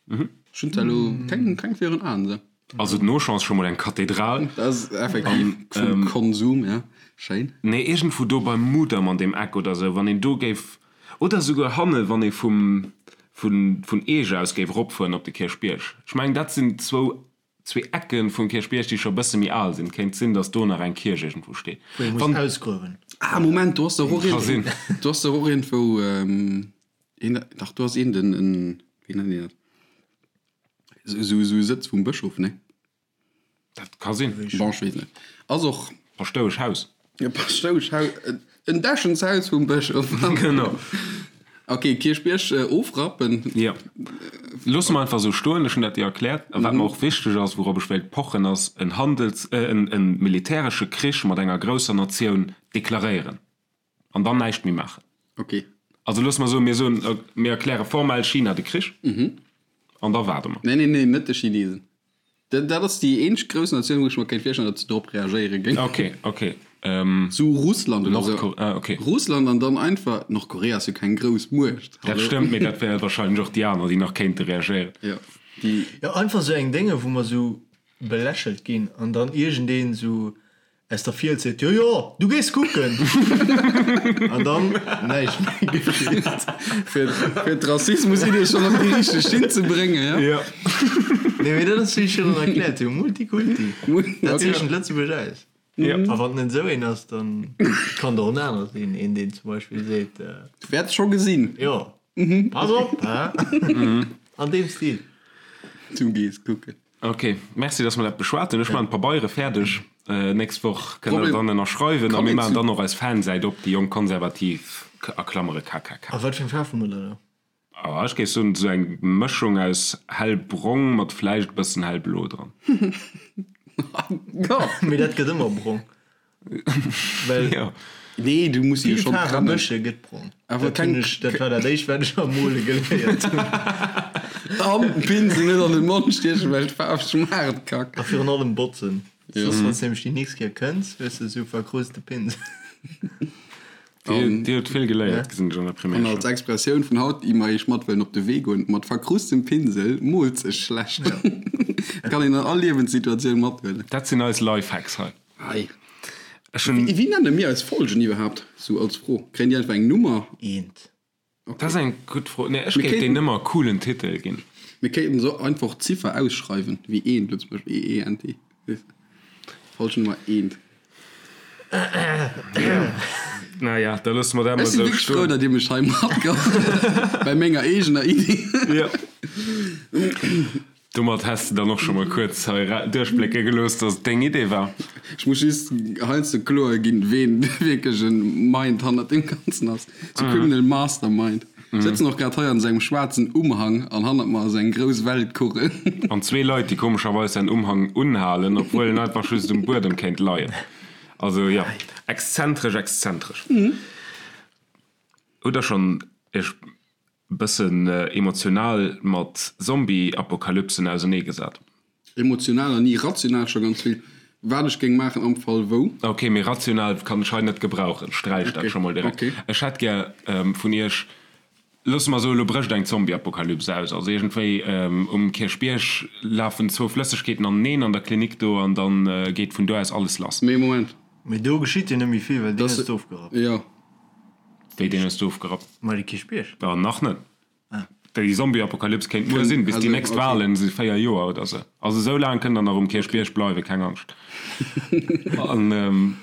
Speaker 2: Ech hunn zwar elo keng, keng virun Aen esou.
Speaker 3: Also den Auchan ass scho mol eng Kathedral.
Speaker 2: Dat ass effektiv vum Konsum, ja. Schéin.
Speaker 3: Nee, iergendwou do beim Mudam an deem Eck oder esou, wann een do géif, oder esouguer hanne wann ee vum, vun, vun Eech aus géif eropfueren op de Kierchbierg. Ech mengen dat sinn zwou, zwee Ecke vum Kierchbierg, déi scho e bësse méi al sinn. Kéint sinn, datt do nach eng Kierch iergendwou steet.
Speaker 1: Wou ee muss
Speaker 3: Wann.
Speaker 1: ausgruewen.
Speaker 2: Ah, Moment, do ass dach och
Speaker 3: Ka sinn.
Speaker 2: do ass dach och iergendwou een, dach do ass een den, en, wéi nennt een dat, esou, esou e Sëtz vum Bëschof, nee?
Speaker 3: Dat ka sinn.
Speaker 2: Bon, ech weess net. Ass och.
Speaker 3: Paschtoueschhaus.
Speaker 2: E Paschtoueschhaus, en Dächenshaus vum Bëschof.
Speaker 3: Genau.
Speaker 2: Ok, Kierchbierg ofrappen.
Speaker 3: Jo. Loosse mer einfach esou stoen. Ech hunn dat dir erkläert. A wat mer och wichteg ass, wourop ech wéilt pochen, ass en Handels-, en militäresche Krich mat enger grousser Natioun deklaréieren an dann näischt méi maachen.
Speaker 2: Ok.
Speaker 3: Also loosse mer soen, mir soen, mir erkläre formell China de Krich an da waarde mer.
Speaker 2: Nee, nee, nee, net de Chinesen. Dat ass déi eenzeg grouss Natioun, wou ech mer kéint virstellen, datt se drop reagéiere géing.
Speaker 3: Ok, ok.
Speaker 2: Sou Russland oder sou.
Speaker 3: Ah, ok.
Speaker 2: Russland an dann einfach, Nordkorea ass jo keng grouss Muecht.
Speaker 3: Dat stëmmt, mee dat wäre wahrscheinlech och déi aner, déi nach kéinte reagéieren.
Speaker 2: Jo, déi.
Speaker 1: Jo, einfach sou eng Dénge, wou mer sou belächelt ginn an dann iergendeen sou Aus der Fiels seet, Jo, jo, du gees kucken! An dann näischt méi geschitt.
Speaker 2: Fir d'Rassismus-Idee schonn op déi richteg Schinn ze bréngen, jo?
Speaker 3: Jo.
Speaker 1: Nee, mee dat ass, wéi ech virun erkläert hunn, Multikulti. Dat zeechent Lëtzebuerg aus.
Speaker 3: Jo.
Speaker 1: A wann et net esou een ass, dann kann et och en aner sinn, een, deen zum Beispill seet.
Speaker 2: Du wäerts scho gesinn.
Speaker 1: Jo. Pass op, hä? An deem Stil.
Speaker 2: Du gees kucken.
Speaker 3: Ok, merci dass mer dat beschwat hunn. Ech maachen d'Pabeiere fäerdeg. Nächst Woch kënnt der dann ënnerschreiwen a mir maachen dann och eis Fansäit op, déi jonk Konservativ, a Klammere KKK.
Speaker 1: A wat fir eng Faarf hu mer da do?
Speaker 3: Ah, ech géif soen esou eng Mëschung aus hellbrong mat vläicht e bëssen hellblo dran.
Speaker 1: Mee dat gëtt ëmmer brong. Well
Speaker 3: Jo.
Speaker 2: Nee, du muss se jo
Speaker 1: vill
Speaker 2: schonn
Speaker 1: Faarwe
Speaker 2: trennen.
Speaker 1: mësche gëtt brong.
Speaker 2: Awer
Speaker 1: Dat hunn
Speaker 2: keng.
Speaker 1: ech, dat war dat éischt, wat ech am Mole geléiert hunn.
Speaker 2: An den Pinsel net an den Mond stiechen, well d'Faarf schmaacht kack.
Speaker 1: A virun allem botzen.
Speaker 2: Jo.
Speaker 1: Soss, wann s de nämlech déi nächst Kéier kënns, hues de esou verkrusste Pinsel.
Speaker 3: Dir, dir hutt vill geléiert, gesinn ech an der
Speaker 2: An
Speaker 3: Primärschoul.
Speaker 2: als Expressioun vun haut, déi mer iech mat wëllen op de Wee goen, Mat verkrustem Pinsel moolt sech schlecht. Dat kann een an all Liewenssituatioun mathuelen.
Speaker 3: Dat sinn eis Lifehacks hei.
Speaker 2: Hei.
Speaker 3: Ech hunn.
Speaker 2: Wéi nenne mir eis Folgen iwwerhaapt? Sou als Fro. Kréien déi einfach eng Nummer?
Speaker 1: Eent.
Speaker 3: Dat ass eng gutt Fro. Nee, ech
Speaker 2: Mir
Speaker 3: géif
Speaker 2: kéinten.
Speaker 3: deenen ëmmer e coolen Titel ginn.
Speaker 2: Mir kéinten se einfach d'Ziffer ausschreiwen, wéi eent elo zum Beispill, E, E, N, T. Weess de? Folge Nummer eent.
Speaker 3: Naja, da loosse mer dat
Speaker 2: Ech
Speaker 3: mol
Speaker 2: si
Speaker 3: esou
Speaker 2: wierklech frou,
Speaker 3: stoen.
Speaker 2: datt Dir mech hei matgeholl bei menger eegener Iddi.
Speaker 3: Jo. Domat häss de dann och scho mol kuerz hei duerchblécke gelooss, dass et deng Idee war.
Speaker 2: Ech muss just heiansdo kloer ginn, ween wierklech e Mind hannert deem Ganzen ass. Sou Criminal Mastermind. Ech sëtzen och grad hei an sengem schwaarzen Umhang an hannert mer ass eng grouss Weltkugel.
Speaker 3: An zwee Leit, déi komescherweis säin Umhang unhalen, obwuel en einfach just um Buedem kéint leien. Also jo, exzentresch, exzentresch. Hutt der schonn Iech bëssen emotional mat Zombie-Apokalypsen ausernee gesat.
Speaker 2: Emotional an ni rational scho ganz vill. Wat ech géing maachen am Fall wou.
Speaker 3: Ok, mee rational kann ech hei net gebrauchen, sträich dat scho mol direkt. Ech hätt gär vun iech, loosse mer soen, elo brécht eng Zombie-Apokalyps aus, also iergendwéi um Kierchbierg lafen zwou Flëssegkeeten aneneen an der Klinik do an da geet vun do aus alles lass.
Speaker 2: Mee Moment.
Speaker 1: Mee do geschitt jo net méi vill, well deen ass ofgerappt.
Speaker 2: Jo.
Speaker 3: Wéi deen hues du ofgerappt?
Speaker 1: Ma de Kierchbierg.
Speaker 3: Jo, nach net. Déi Zombie-Apokalyps kéint muer sinn, bis déi nächst Wahlen si 4 Joer oder sou. Also esou laang kënnt der nach um Kierchbierg bleiwen, keng Angscht. An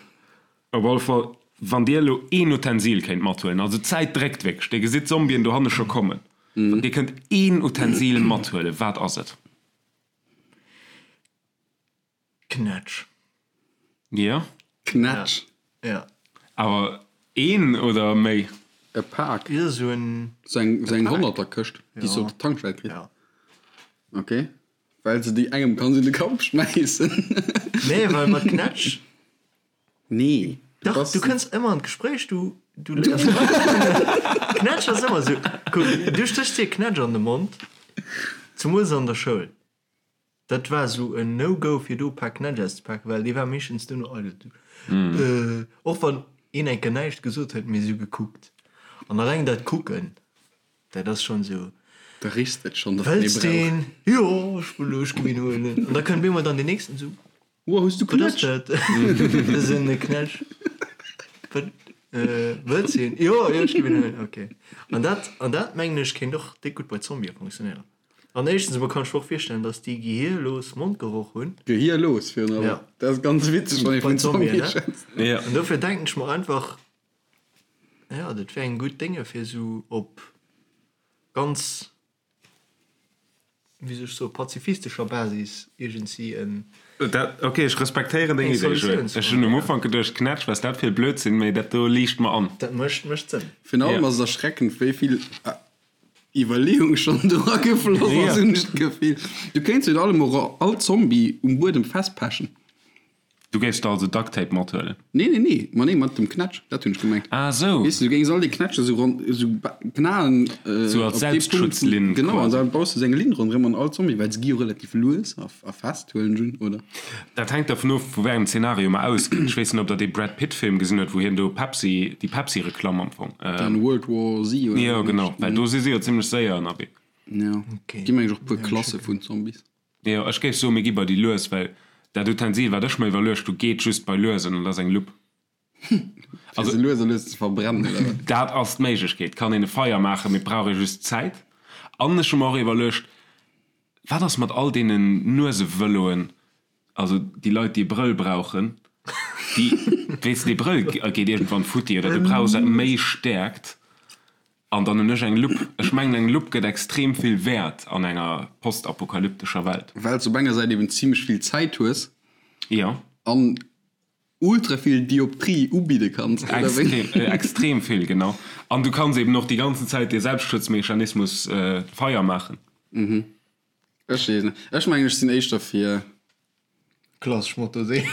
Speaker 3: op alle Fall, wann dir elo een Utensil kéint mathuelen, also d'Zäit dréckt wierklech, dir gesitt d'Zombien dohanne scho kommen, wann dir kënnt een Utensil mathuelen, wat ass et?
Speaker 1: Knätsch.
Speaker 3: Jo.
Speaker 2: Knätsch.
Speaker 1: Ja.
Speaker 3: Awer een oder méi?
Speaker 2: E Pak.
Speaker 1: Jo, sou en.
Speaker 2: Sou eng, sou eng Honnerterkëscht, déi s de op der Tankstell kriss.
Speaker 1: Ja.
Speaker 2: Ok. Well se déi engem kanns un de Kapp schmäissen.
Speaker 1: Nee, well mat Knätsch.
Speaker 2: Nee.
Speaker 1: Dach, du kënns ëmmer an d'Gespréich, du, du léiers Leit kennen. Knätsch ass ëmmer sou, kuck, du stéchs dir Knätsch an de Mond, zemools an der Schoul. Dat war sou en No-Go fir do e Pak Knätsch auszepaken, well dee war meeschtens duerno eidel. Du, och wann een eng Kéier näischt gesot huet, mee sou gekuckt. An alleng dat Kucken, dat ass schonn sou.
Speaker 2: Da richs de et schonn, datt en ee
Speaker 1: Wëlls
Speaker 2: brauch.
Speaker 1: deen? Jo, ech wëll, ech gi mir en huelen. An da kënnt bemol dann deen nächsten sou.
Speaker 2: Woah, hues du
Speaker 1: Wat ass
Speaker 2: Knätsch?
Speaker 1: dat? Dat ass en Knätsch. Wat, wëlls de een? Jo, jo, ech gi mir en huelen. Ok. An dat, an dat mengen ech kéint och déck gutt bei Zombië funktionéieren. An éischtens emol kann ech mer och virstellen, dass déi gehierlos Mondgeroch hunn.
Speaker 2: Gehierlos virun allem.
Speaker 1: Ja.
Speaker 2: Dat ass ganz witzeg, wann ee vun Zombie
Speaker 1: ne?
Speaker 2: schwätzt.
Speaker 3: Ja.
Speaker 1: An dofir denken ech mer einfach, ja, dat wär eng gutt Dénge fir esou op ganz, wéi soll ech soen, pazifistescher Basis iergendsi en.
Speaker 3: Dat, ok, ech respektéieren deng
Speaker 1: Eng
Speaker 3: Idee, Joël.
Speaker 1: Solutioun ze
Speaker 3: Ech hunn um
Speaker 1: fannen, ja.
Speaker 3: Ufank geduecht, Knätsch, wat ass dat fir e Blödsinn, mee dat do liicht mer an.
Speaker 1: Dat mécht, mécht Sënn.
Speaker 2: Virun allem
Speaker 3: Ja.
Speaker 2: ass et erschreckend, wéi vill Iwwerleeung schonn dra gefloss ass, hunn ech d'Gefill. Du kéints virun allem och all Zombie um Buedem festpechen.
Speaker 3: Du géifs der also Duct Tape mathuelen?
Speaker 2: Nee, nee, nee, ma nee, mat dem Knätsch, dat hunn ech gemengt.
Speaker 3: Ah esou.
Speaker 2: Weess de, du géings all déi Knätsche sou ronn, sou knaen.
Speaker 3: Sou als Selbstschutzlinn
Speaker 2: quasi. Genau, an da baus de sou eng Linn ronderëm an all Zombie, well se gi jo relativ lues a fest, huelen ech un, oder?
Speaker 3: Dat hänkt dervun of, vu wéi engem Zenario mer ausginn. Ech weess net, ob der dee Brad Pitt Film gesinn hutt, wou hien do Pepsi, déi Pepsi-Reklamm am Fong.
Speaker 2: Den World War Z
Speaker 3: oder? Jo, genau, well do si si jo zimmlech séier ënnerwee.
Speaker 2: Jo, gi meng ech och puer Klasse vun Zombies.
Speaker 3: Jo, ech géif soen, mir gi bei déi lues, well dat Utensil, wat ech mer iwwerluecht hu, geet just bei luesen an dat ass eng Lupp.
Speaker 2: Fir se lues a lues ze verbrennen, oder
Speaker 3: wat? Dat ass d'Méiglechkeet. Et kann een e Feier maachen, mee et brauch ee just Zäit. An ech hu mer och iwwerluecht, wat ass mat all deenen Nuesevëloen, also déi Leit, déi e Brëll brauchen, déi, weess de, dee Brëll geet iergendwann futti oder du brauchs méi Stäerkt. An dann hunn ech eng Lupp. Ech mengen, eng Lupp gëtt extrem vill Wäert an enger postapokalyptescher Welt.
Speaker 2: Well s op enger Säit eben zimmlech vill Zäit hues.
Speaker 3: Jo.
Speaker 2: An ultra vill Dioptrie ubidde kanns,
Speaker 3: oder wéi? Extrem, extrem vill, genau. An du kanns eben och déi ganzen Zäit dee Selbstschutzmechanismus Feier maachen.
Speaker 2: Mhm. Ech weess net. Ech mengen, ech sinn éischter fir.
Speaker 1: Klassesch Motorsee.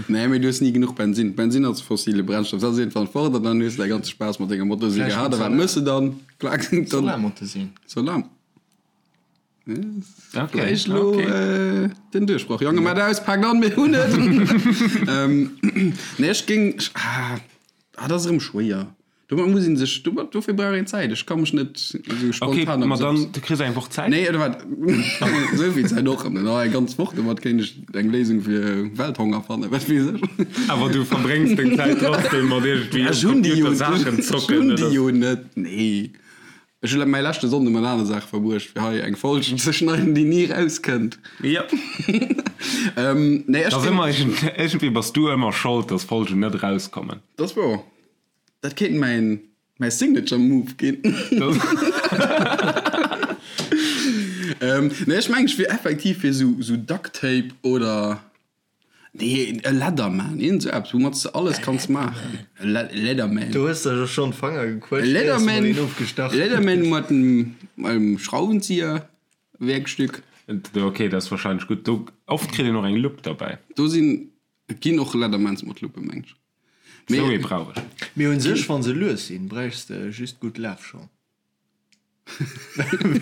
Speaker 2: Nee, mee du hues ni genuch Bensin. Bensin ass e fossile Brennstoff. Dat ass iergendwann fort an dann hues de däi ganze Spaass mat denger Motorsee gehat. A wat mëss de dann?
Speaker 1: Klack, dann. Solarmotorsee.
Speaker 2: Solar. Vläicht elo den Duerchbroch. Jonge, mat aus, paakt an, mir hunn et! Nee, ech géing. Ah, dat ass erëm schwéier. Domat muss een sech, domat, dofir brauch een Zäit. Ech ka mech net esou
Speaker 3: spontan. Okay, ma dann, du kriss eng Woch Zäit.
Speaker 2: Nee, oder wat? Esou vill Zäit och net. Oh, eng ganz Woch, domat kéint ech eng Léisung fir Welthonger fannen, wat weess
Speaker 3: ech. Awer du verbréngs deng Zäit trotzdem mat iergendwéi
Speaker 2: um Computer Saachen zocken, oder? Ech hunn déi jo net, nee. Ech hu mäi leschte Sonnde mat anere Saache verbruecht, fir hei eng Folg ze schneiden, déi ni erauskënnt.
Speaker 3: Jo.
Speaker 2: Nee, ech.
Speaker 3: Ass ëmmer, iergendwéi bass du ëmmer Schold, dass Folgen net erauskommen.
Speaker 2: Dat ass wouer. Dat kéint mäin mäi Signature Move ginn. Nee, ech mengen ech wier effektiv fir sou sou Duct Tape oder nee e Leatherman, iergend sou eppes woumat s de alles kanns maachen. E Leatherman.
Speaker 1: Du hues der jo schonn d'Fanger
Speaker 2: gequëtscht, éiers de mol een ofgestach hues. Leatherman mat engem Schrauwenzieher, Werkstück.
Speaker 3: Ok, dat ass warscheinlech gutt. Do oft kritt een och eng Lupp derbäi.
Speaker 2: Do sinn, et ginn och Leathermans mat Luppen, meng ech.
Speaker 3: Sou ee brauch ech.
Speaker 1: Mee un sech, wann se lues sinn, bräichs de just gutt Lafschong.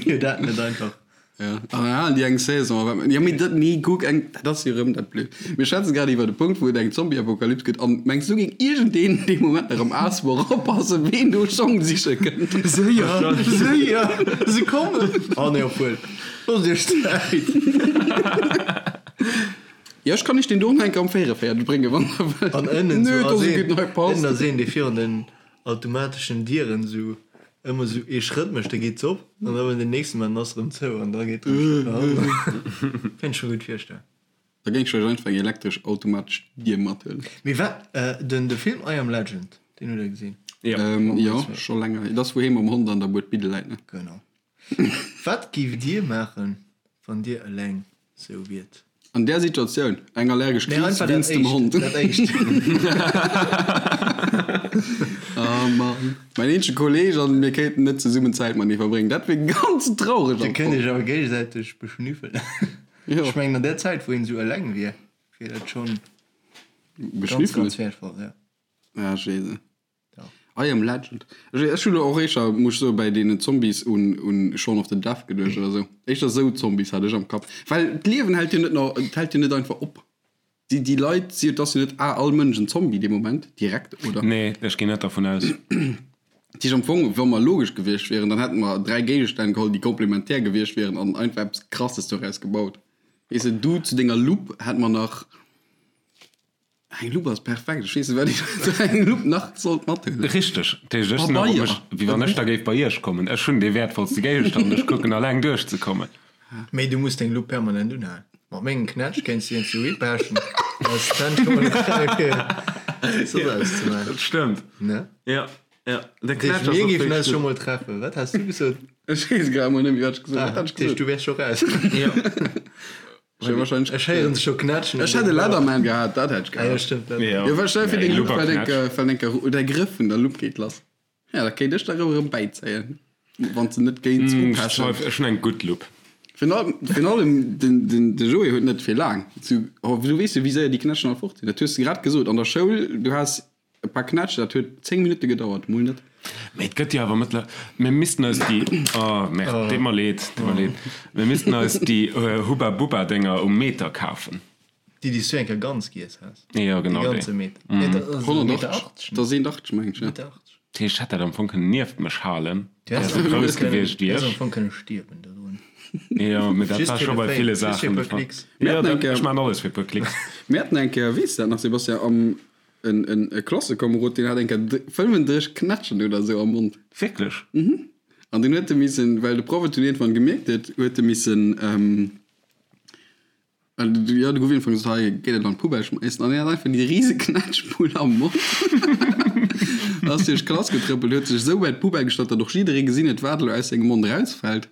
Speaker 1: Wier dat net einfach?
Speaker 2: Ja, an dann halen déi eng Saison. A wat, jo, mee dat, nee, kuck, eng, dat ass jo erëm dat Blöd. Mir schwätzen grad iwwer e Punkt, wou et eng Zombie-Apokalyps gëtt, an mengs du, géing iergendeen dee Moment nach am Aasbor oppassen, ween do Schong siche kënnt?
Speaker 1: Séier, séier, se kommen! Oh nee, obwuel, loosst iech Zäit.
Speaker 2: Jo, ech kann iech deen do nach eng Kéier am 44 bréngen, wann der wëllt.
Speaker 1: An ënnen sou ass een, ënnen ass een, dee virun den automateschen Dieren sou ëmmer sou ee Schrëtt mécht, da geet se op, an da wann den nächsten maan, dann ass se erëm zou an da geet erëm Schrëtt no hannen. Kéint ech mer gutt virstellen.
Speaker 2: Da géing ech lech einfach eng elektresch automatesch Dier mathuelen.
Speaker 1: Mee wat, den de Film I Am Legend, deen hutt der gesinn?
Speaker 2: Jo. Jo, scho länger hier. Dat ass wou hee mam Hond an der Bued Bidde läit, ne?
Speaker 1: Genau. Wat giff dir maachen, wann dir eleng sou wiert?
Speaker 2: An där Situatioun, eng allergesch Kris wéinst dem Hond.
Speaker 1: Dat éischt.
Speaker 2: Oh Mann. Mäin eenzege Kolleeg an mir kéinten net zesummen Zäit matenee verbréngen. Dat wier ganz traureg
Speaker 1: am Fong. Dir kënnt iech awer géigesäiteg beschnüffelen. Ech mengen an där Zäit wou een sou eleng wier, wier dat schonn ganz, ganz wäertvoll,
Speaker 2: jo. Ah, Jesu. I am Legend. Ech hunn elo och éischter, muss ech soen, bäi deenen Zombies un un Shaun of the Death geduecht oder sou. Éischter sou Zombies hat ech am Kapp. Well d'Liewen hält jo net no, et hält jo net einfach op. Déi déi Leit si, et ass jo net ah all Mënsch en Zombie dee Moment direkt, oder?
Speaker 3: Nee, ech ginn net dervun aus.
Speaker 2: Dat heescht am Fong, wa mer logesch gewiescht wieren, dann hätte mer 3 Géigestänn geholl, déi komplementär gewiescht wieren an einfach eppes Krasses doraus gebaut. Weess de, du zu denger Lupp hätt mer nach. Eng Lupp ass perfekt. Ech weess net, wat ech zu engem Lupp nach sollt mathuelen.
Speaker 3: Richteg. Dat heescht, ech sinn och op mech, wéi wann ech da géif bei iech kommen. Ech hunn dee wäertvollste Géigestand, ech kucken alleng duerchzekommen.
Speaker 1: Mee du muss deng Lupp permanent unhalen. Mat mengem Knätsch kéints du iergendwou hipechen, ass d'Hänn scho mol fräi fir soss eppes ze maachen.
Speaker 3: Dat stëmmt.
Speaker 1: Ne?
Speaker 3: Jo, jo.
Speaker 1: De Knätsch ass och Mir géifen eis scho mol treffen. Wat has du gesot?
Speaker 2: Ech weess grad mol net méi, wat ech gesot hunn. Wat hat ech
Speaker 1: gesot? Dat heescht, du wäers scho raus.
Speaker 3: Jo.
Speaker 1: Ech héieren se scho knätschen.
Speaker 2: Ech hätt e Leatherman gehat, dat hätt ech gehat.
Speaker 1: Ah jo, stëmmt.
Speaker 2: Jo, well stell dir vir, deng Lupp fält eng Kéier, fält eng Kéier, der Grëff vun der Lupp geet lass. Ja, da kéint ech der erëm bäizéien, wann s de net géings
Speaker 3: upechen. Ech hunn eng gutt Lupp.
Speaker 2: Virun allem den Joé huet net fir laang. Du weess jo wéi séier déi Knätschen all fort sinn. Dat hues de grad gesot an der Schoul, du has e paar Knätsch, dat huet 10 Minutte gedauert, mol net.
Speaker 3: Mee et gëtt jo awer mëttler, mir missten eis déi, oh merde, deet mer leed, deet mer leed, mir missten eis déi Hubba Bubba Dénger um Meter kafen.
Speaker 1: Déi déi s du eng Kéier ganz giess has.
Speaker 3: Jo genau
Speaker 1: déi. Dee ganze Meter. Nee, dat ass e Meter 80.
Speaker 2: Dat ass 1,80 meng ech, ja.
Speaker 1: Meter 80.
Speaker 3: Dat heescht, ech hätt dat am Fong kënnen nieft mech halen, wär se grouss gewiescht
Speaker 1: wéi ech. Du häss am Fong kënne stierwen dodrun.
Speaker 3: Jo, mee dat war scho bei ville Saachen de Fall. Jo, dat, ech maachen alles fir e puer Klicks.
Speaker 2: Mir haten eng Kéier, weess de dat nach, Sebastian, am, en, en, e Klassekomerod, deen hat eng Kéier 35 Knätschen oder esou am Mond.
Speaker 3: Wierklech?
Speaker 2: Mhm. An deen huet e missen, well de Proff et dunn iergendwann gemierkt huet, huet e missen, Jo, de gouf iergendwann gesot, hei géi dat an d'Poubelle schmeissen. An hien hat einfach déi rise Knätschbull am Mond. Ass duerch d'Klass getrëppelt, huet sech esou bei d'Poubelle gestallt, datt och jidderee gesinn huet, wat elo aus sengem Mond erausfält.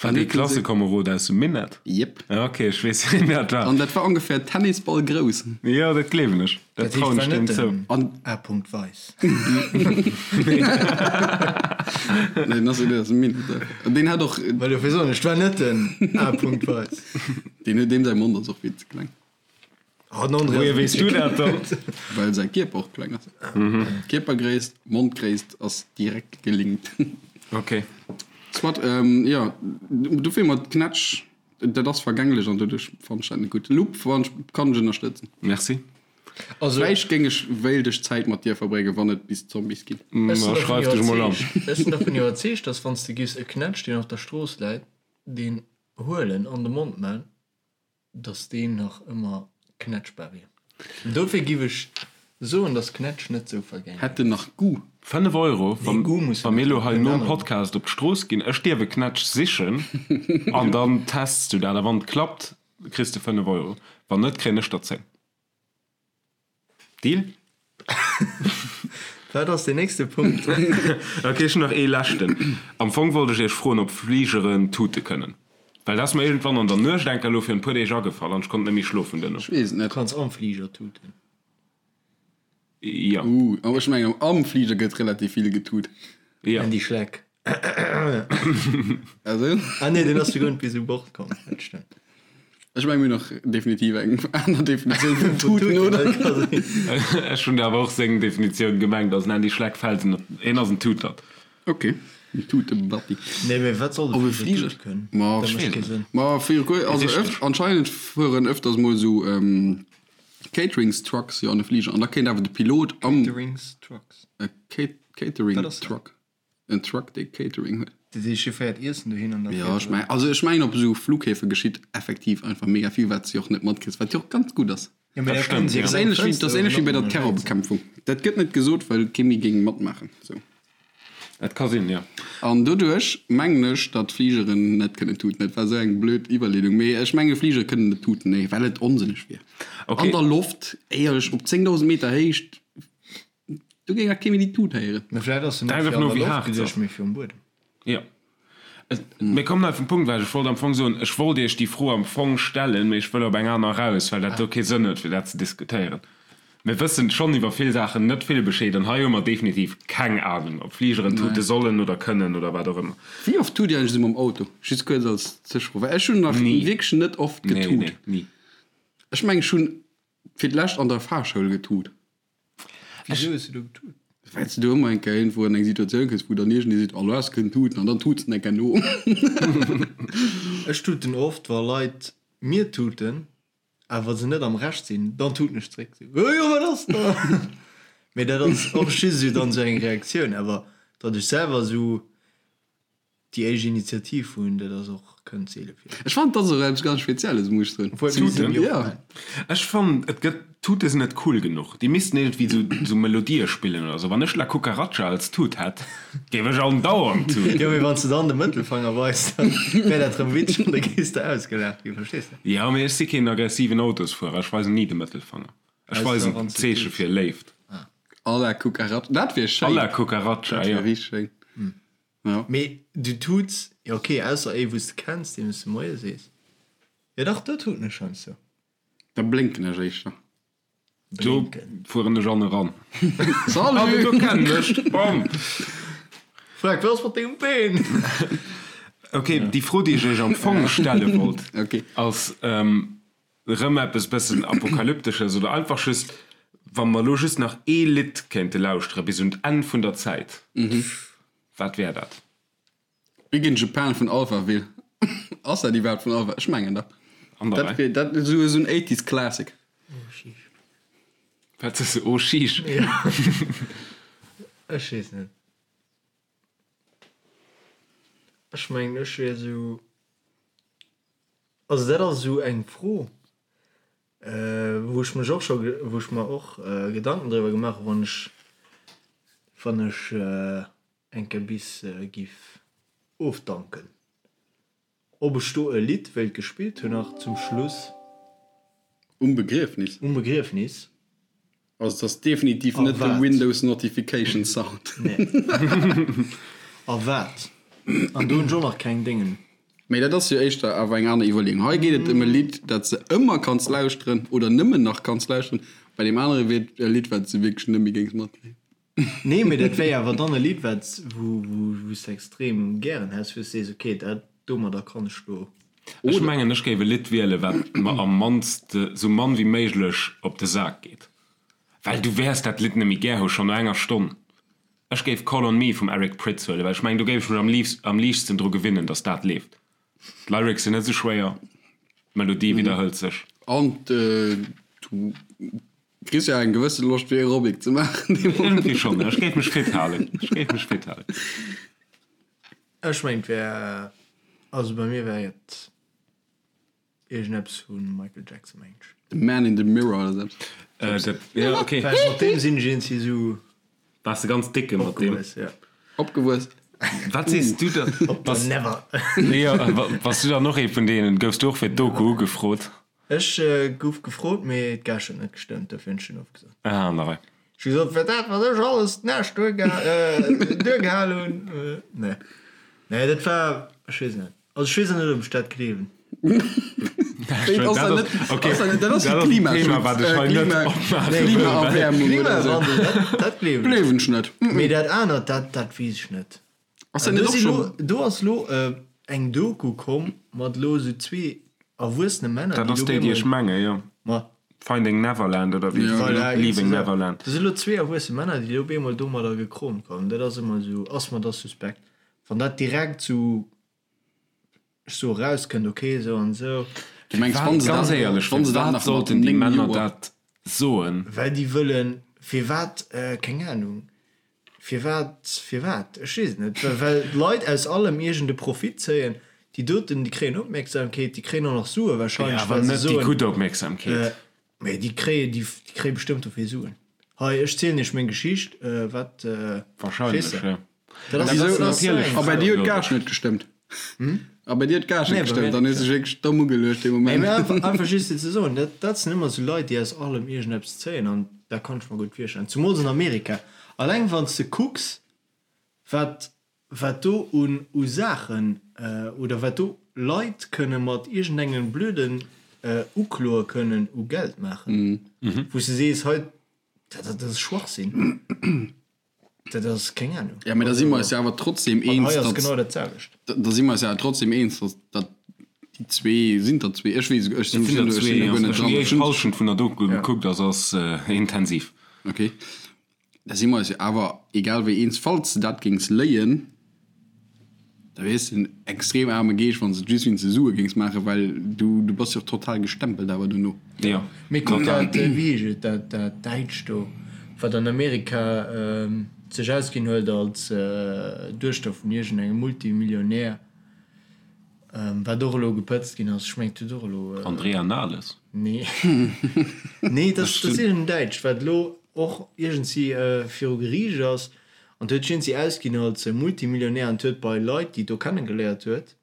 Speaker 3: War dee Klassekomerod aus dem Minett?
Speaker 2: Jep.
Speaker 3: Ok, ech weess, wien dat war.
Speaker 2: An dat war ongefähr Tennisball grouss.
Speaker 3: Jo, dat gleewen ech. Dat trauen ech deem zou.
Speaker 1: An A. Weiss.
Speaker 2: Nee, den ass net aus dem Minett. An deen hat och.
Speaker 1: Well dofir soen ech, 't war net den A. Weiss.
Speaker 2: Deen huet, deem säi Mond ass och vill ze kleng.
Speaker 1: Oh, den André
Speaker 3: Wohier
Speaker 1: ass
Speaker 3: weess du dat dann?
Speaker 2: Well säi Kierper och kleng ass. Kierpergréisst, Mondgréisst ass direkt gelinkt.
Speaker 3: Ok.
Speaker 2: Soit, jo, dofir mat Knätsch, dat ass vergänglech an doduerch fannen ech dat net gutt. Lupp fannen ech, kann ech ënnerstëtzen.
Speaker 3: Merci.
Speaker 2: Also, Vläicht géing ech, wéilt ech Zäit mat dir verbréngen, wann et bis Zombies ginn.
Speaker 1: Ech sinn
Speaker 3: Ma
Speaker 1: dervun
Speaker 3: schreif dech mol an.
Speaker 1: iwwerzeegt, ech sinn dervun iwwerzeegt, dass wann s de giffs e Knätsch, deen op der Strooss läit, deen huelen an de Mond man, dass deen nach ëmmer knätschbar wier. Dofir giff ech soen, dass Knätsch net sou vergänglech
Speaker 2: Hätt en nach Goût?
Speaker 3: 5 Euro,
Speaker 1: Nee, Goût muss
Speaker 3: wa
Speaker 1: en
Speaker 3: mir
Speaker 1: net
Speaker 3: elo
Speaker 1: hunn,
Speaker 3: hei
Speaker 1: kënnt
Speaker 3: nom
Speaker 1: aner.
Speaker 3: Podcast op d'Strooss ginn, ech dierf e Knätsch sichen an dann tests du dat a wann et klappt, kriss de 5 Euro, wann net, kréien ech der 10. Deal?
Speaker 1: Wat ass deen nächste Punkt?
Speaker 3: Ok, ech hunn nach ee leschten. Am Fong wollt ech iech froen, ob Fligeren tute kënnen. Well dat ass mer iergendwann an der Nuecht enker elo virun e puer Deeg agefall an ech konnt net méi schlofen duerno.
Speaker 2: Ech weess et net.
Speaker 1: Du kanns am Fliger tuten.
Speaker 3: Jo.
Speaker 2: Uh, awer ech mengen am Fliger gëtt relativ vill getut.
Speaker 3: Jo.
Speaker 1: Andy Schleck.
Speaker 2: Also?
Speaker 1: Ah nee, deen ass jo guer net bis u Bord komm. Dat stëmmt.
Speaker 2: Ech mengen mir hunn och definitiv eng aner Definitioun vun tuten, oder?
Speaker 3: Ech hunn awer och seng Definitioun gemengt, also den Andy Schleck fält en, hien ass en Tutert.
Speaker 2: Ok, en Tutebatti.
Speaker 1: Nee, mee wat soll de
Speaker 2: Op e
Speaker 1: Fliger
Speaker 2: Fliger?
Speaker 1: tute kënnen?
Speaker 2: Ma
Speaker 1: Dat mécht kee Sënn.
Speaker 2: Ma fir, also öft, anscheinend fueren öfters mol esou Cateringstrucks jo an de Fliger an da kéint awer de Pilot am.
Speaker 1: Cateringstrucks?
Speaker 2: E Catering-Truck. En Truck dee Catering huet.
Speaker 1: Dat heescht, hie féiert Iessen dohin an da
Speaker 2: Jo, ech mengen, also ech mengen op esou Flughäfe geschitt effektiv einfach mega vill, wat s de och net matkriss, wat jo och ganz gutt ass.
Speaker 1: Jo, mee
Speaker 3: Dat
Speaker 1: da
Speaker 3: stëmmt,
Speaker 1: kënnen se
Speaker 3: ja.
Speaker 2: Dat ass
Speaker 1: jo
Speaker 2: ähnlech wéi, dat ass
Speaker 1: Fënster
Speaker 2: ähnlech wéi bei der
Speaker 1: mat
Speaker 2: Terrorbekämpfung. Dat gëtt net gesot, well kee méi géing matmaachen. Sou.
Speaker 3: Et ka sinn, jo.
Speaker 2: An doduerch mengen ech, datt Fligeren net kënnen tuten. Dat war esou eng blöd Iwwerleedung, mee ech menge Fligere kënnen net tuten, nee, well et onsënneg wier.
Speaker 3: Okay.
Speaker 2: An der Loft, éierlech, op 10.000 Meter Héicht, Do géing nach kee méi déi Tut héieren.
Speaker 1: Mä vläit ass se net
Speaker 3: Einfach
Speaker 1: fir an
Speaker 3: no
Speaker 1: der
Speaker 3: wéi
Speaker 1: Loft
Speaker 3: haart se
Speaker 1: geduecht,
Speaker 3: ass.
Speaker 1: mee fir um Buedem.
Speaker 3: Jo. Mir kommen hei vum Punkt ewech. Ech wollt am Fong soen, ech wollt Iech déi Fro am Fong stellen, mee ech wëll op eng aner eraus, well dat do kee Sënn huet, fir dat ze diskutéieren. Mir wëssen schonn iwwer vill Saachen net vill Bescheed an hei hu mer definitiv keng Anung, ob Fligeren tute sollen oder kënnen oder wat och ëmmer.
Speaker 2: Wéi oft tut Dir eigentlech esou mam Auto? Just kuerz als Zwischefro, well ech hunn nach
Speaker 3: Ni.
Speaker 2: wierklech net oft
Speaker 3: Nee,
Speaker 2: getut.
Speaker 3: nee, ni.
Speaker 2: Ech mengen, ech hunn fir d'lescht an der Fahrschoul getut.
Speaker 1: Wisou hues du do getut?
Speaker 2: Well s de do ëmmer eng Kéier iergendwou an eng Situatioun kënns, wou dann iergendee seet, oh lo has de kënnen tuten, an dann tuts de eng Kéier no.
Speaker 1: Ech tuten oft, wa Leit mir tuten, awer se net am Recht sinn, dann tuten ech zréck, sou, oh jo, wat ass da? Mee dat ass och just esou dann esou eng Reaktioun, awer datt ech selwer esou Déi éischt Initiativ hunn, dat ass och, kënnt seele vir.
Speaker 2: Ech fannen, dat ass och eppes ganz Spezielles, muss ech soen.
Speaker 3: Tuten?
Speaker 2: Jo.
Speaker 3: Ech fannen, et gëtt, Tute sinn net cool genuch. Déi missten iergendwéi sou, sou Melodië spillen oder sou. Wann ech La Cucaracha als Tut hätt, géif ech andauernd tuten.
Speaker 1: Jo, mee wann s de dann de Mëttelfanger weis, dann wär dat rëm witzeg an da géifs de ausgelaacht ginn, verstees de?
Speaker 3: Jo, mee ech si keen aggressiven Autosfuerer. Ech weisen ni de Mëttelfanger. Ech weisen d'Zeeche fir Léift.
Speaker 2: Alla Cucaracha, dat wier schéin.
Speaker 3: Alla Cucaracha, jo.
Speaker 2: Dat wier richteg schéin. Ja.
Speaker 1: Mee du tuts, jo ok, ausser ee wou s de kenns, deem s de Moie sees. Jo dach, do tuten ech heiansdo.
Speaker 2: Da blénken ech éischter.
Speaker 3: Do fueren ech an eran.
Speaker 2: Salut!
Speaker 3: Ah, do kennen ech! Bam!
Speaker 1: Frag, wat ass mat dengem Been?
Speaker 3: Ok, déi Fro, déi ech iech am Fong stelle wollt, ass erëm eppes bëssen Apokalyptesches oder einfach just, wa mer elo just nach ee Lidd kéinte lauschtere bis un d'Enn vun der Zäit, wat wär dat?
Speaker 2: Big in Japan vun Alphaville. Ass dat iwwerhaapt vun Alpha? Ech mengen dach.
Speaker 3: An der
Speaker 2: Dat wier dat esou esou en 80s Classic.
Speaker 1: Oh sheesh.
Speaker 3: Wat sees de? Oh sheesh.
Speaker 1: Ech weess net. Ech mengen ech wier esou, also dat ass esou eng Fro wou ech mech och scho, wou ech mer och Gedanken driwwer gemaach hu wann ech, wann ech eng Kéier bis giff ofdanken. Ob ech do e Lidd wéilt gespillt hunn nach zum Schluss.
Speaker 2: Um Begriefnis?
Speaker 1: Um Begriefnis.
Speaker 2: Also et ass definitiv net de Windows Notification Sound.
Speaker 1: Nee. A wat? An do hunn ech och nach keng Déngen.
Speaker 2: Mee dat ass jo éischter awer eng aner Iwwerleeung. Hei geet et ëm e Lidd, dat s de ëmmer kanns lauschteren oder nëmmen nach kanns lauschteren. Bei deem anere wier et e Lidd, wat s de wierklech net méi géings matkréien.
Speaker 1: Nee, mee dat wär awer dann e Lidd, wat, wou, wou, wou s de extrem gären häss, wou s de sees, okay, dat domadder kann ech lo.
Speaker 3: Ech mengen, ech géif e Lidd wielen, wat mer am mannste, sou mann wéi méiglech op de Sak geet. Well du wäers dat Lidd net méi gär hu schonn no enger Stonn. Ech géif Call on Me vum Eric Prydz huelen, well ech mengen, do géif ech mech am liefst, am liichtsten dru gewinnen, dass dat leeft. D'Lyrics sinn net sou schwéier, d'Melodie widderhëlt sech.
Speaker 2: An du Kriss jo eng gewësse Loscht fir Aerobic ze maachen dee
Speaker 3: Moment. Iergendwéi schonn, ech géif mech fit halen, ech géif mech fit halen.
Speaker 1: Ech mengen et wär, also bei mir wär et iergendeppes vu Michael Jackson mengen ech.
Speaker 2: The Man in the Mirror oder sou
Speaker 3: eppes. Dat, jo ok.
Speaker 1: Well mat deem sinn ech iergendwéi sou.
Speaker 3: Waars de ganz décke mat deem?
Speaker 1: Opgewuess, jo.
Speaker 2: Opgewuess.
Speaker 3: Wat sees du da?
Speaker 1: Op der Never.
Speaker 3: Jo, bass du dann och ee vun deenen? Goufs du och fir d'Doku ugefrot?
Speaker 1: Ech gouf gefrot, mee d'Gage huet net gestëmmt, dofir hunn ech dunn ofgesot.
Speaker 3: Ah, an der Rei.
Speaker 1: Ech hu gesot, fir dat, wat ech alles d'Näscht duergehal hunn, nee. Nee, dat war, ech weess net. Also ech weess och net, ob ech dat gleewen.
Speaker 2: Dat ass de Klimaschutz, Klimaerwäermung oder esou.
Speaker 1: Klimawandel, dat gleewen ech.
Speaker 2: Gleewen ech net.
Speaker 1: Mee dat anert, dat, dat weess ech net.
Speaker 2: Ass dat net och schon.
Speaker 1: Do ass lo eng Doku komm mat lo sou zwee erwuessene Männer,
Speaker 3: Dat ass déi, déi ech menge, jo.
Speaker 1: Ma.
Speaker 3: Finding Neverland oder wéi?
Speaker 1: Voilà,
Speaker 3: Leaving Neverland.
Speaker 1: Do si lo zwee erwuesse Männer, déi op eemol domadder gekromt kommen. Dat ass ëmmer sou, ass mer da suspekt. Wann dat direkt sou, ech soe rauskënnt, ok, sou an sou.
Speaker 2: Du mengs, wann se
Speaker 3: Ganz
Speaker 2: dat,
Speaker 3: éierlech,
Speaker 2: wann se dat
Speaker 3: firwat
Speaker 2: nach mat
Speaker 3: sollten déi
Speaker 2: 9
Speaker 3: Männer
Speaker 2: Joer.
Speaker 3: dat soen?
Speaker 1: Well déi wëllen, firwat, keng Ahnung. Firwat, firwat? Ech weess et net. Well d'Leit aus allem iergend e Profit zéien. Déi doten, déi kréien Opmierksamkeet, déi kréien och nach Sue
Speaker 3: Jo,
Speaker 1: wahrscheinlech,
Speaker 3: awer
Speaker 1: well se
Speaker 3: net déi
Speaker 1: soen,
Speaker 3: gutt Opmierksamkeet.
Speaker 1: Mee déi kréien, déi kréie bestëmmt dofir Suen. Hei, ech zielen iech meng Geschicht, wat,
Speaker 3: Wahrscheinlech,
Speaker 1: verstees de?
Speaker 3: jo.
Speaker 1: Dat ass,
Speaker 2: Wisou?
Speaker 1: dat ass
Speaker 3: Natierlech.
Speaker 2: A bei dir huet d'Gage net gestëmmt? A bei dir huet d'Gage
Speaker 1: Nee,
Speaker 2: net
Speaker 1: bei mir
Speaker 2: gestëmmt, dann
Speaker 1: net
Speaker 2: hues de dech wierklech domm ugeluecht dee
Speaker 1: Nee,
Speaker 2: Moment.
Speaker 1: mee einfach, einfach just fir ze soen, dat, dat sinn ëmmer esou Leit, déi aus allem iergendeppes zéien an dat kann ech mer gutt virstellen. Zumools an Amerika. Alleng wann s de kucks, wat, wat do un, u Saachen oder wat do Leit kënne mat iergendengem blöden Ukloe kënnen u Geld maachen, wou s de sees, hei, dat, dat ass Schwachsinn. Dat ass keng Ahnung.
Speaker 2: Ja, mee da si mer eis jo awer trotzdem
Speaker 1: An
Speaker 2: eens,
Speaker 1: hei ass
Speaker 2: datt,
Speaker 1: genau dat selwecht.
Speaker 2: da si mer eis jo awer trotzdem eens, datt, datt déi zwee, sinn der zwee, ech weess, ech
Speaker 3: Et
Speaker 2: sinn
Speaker 3: sinn der
Speaker 2: ech
Speaker 3: zwee,
Speaker 2: sinn do
Speaker 3: jo.
Speaker 2: guer net
Speaker 3: Ech hunn
Speaker 2: dran.
Speaker 3: déi
Speaker 2: Ech
Speaker 3: éischt
Speaker 2: hunn,
Speaker 3: Hallschent vun der Doku gekuckt, also ass intensiv.
Speaker 2: okay, da si mer eis jo awer egal wéi eens, falls de dat géings léien, Da wiers de en extrem aarme Geescht, wann s de et just wéinst de Sue géings maachen, well du, du bass jo och total gestempelt awer dono.
Speaker 3: Jo,
Speaker 1: Mee kuck
Speaker 3: total.
Speaker 1: dat, wéi heescht et, dat, dat Däitscht do, wat an Amerika sech ausginn huet als Duechter vun iergendengem Multimillionär, wat och elo gepëtzt ginn ass, ech mengen, et huet och elo.
Speaker 3: Andrea Nahles?
Speaker 1: Nee, nee, dat ass iergendeng Däitsch, wat elo och iergendwéi viru Geriicht ass. An huet sech iergendwéi ausginn als Multimillionär an huet bei Leit, déi et do kennegeléiert huet,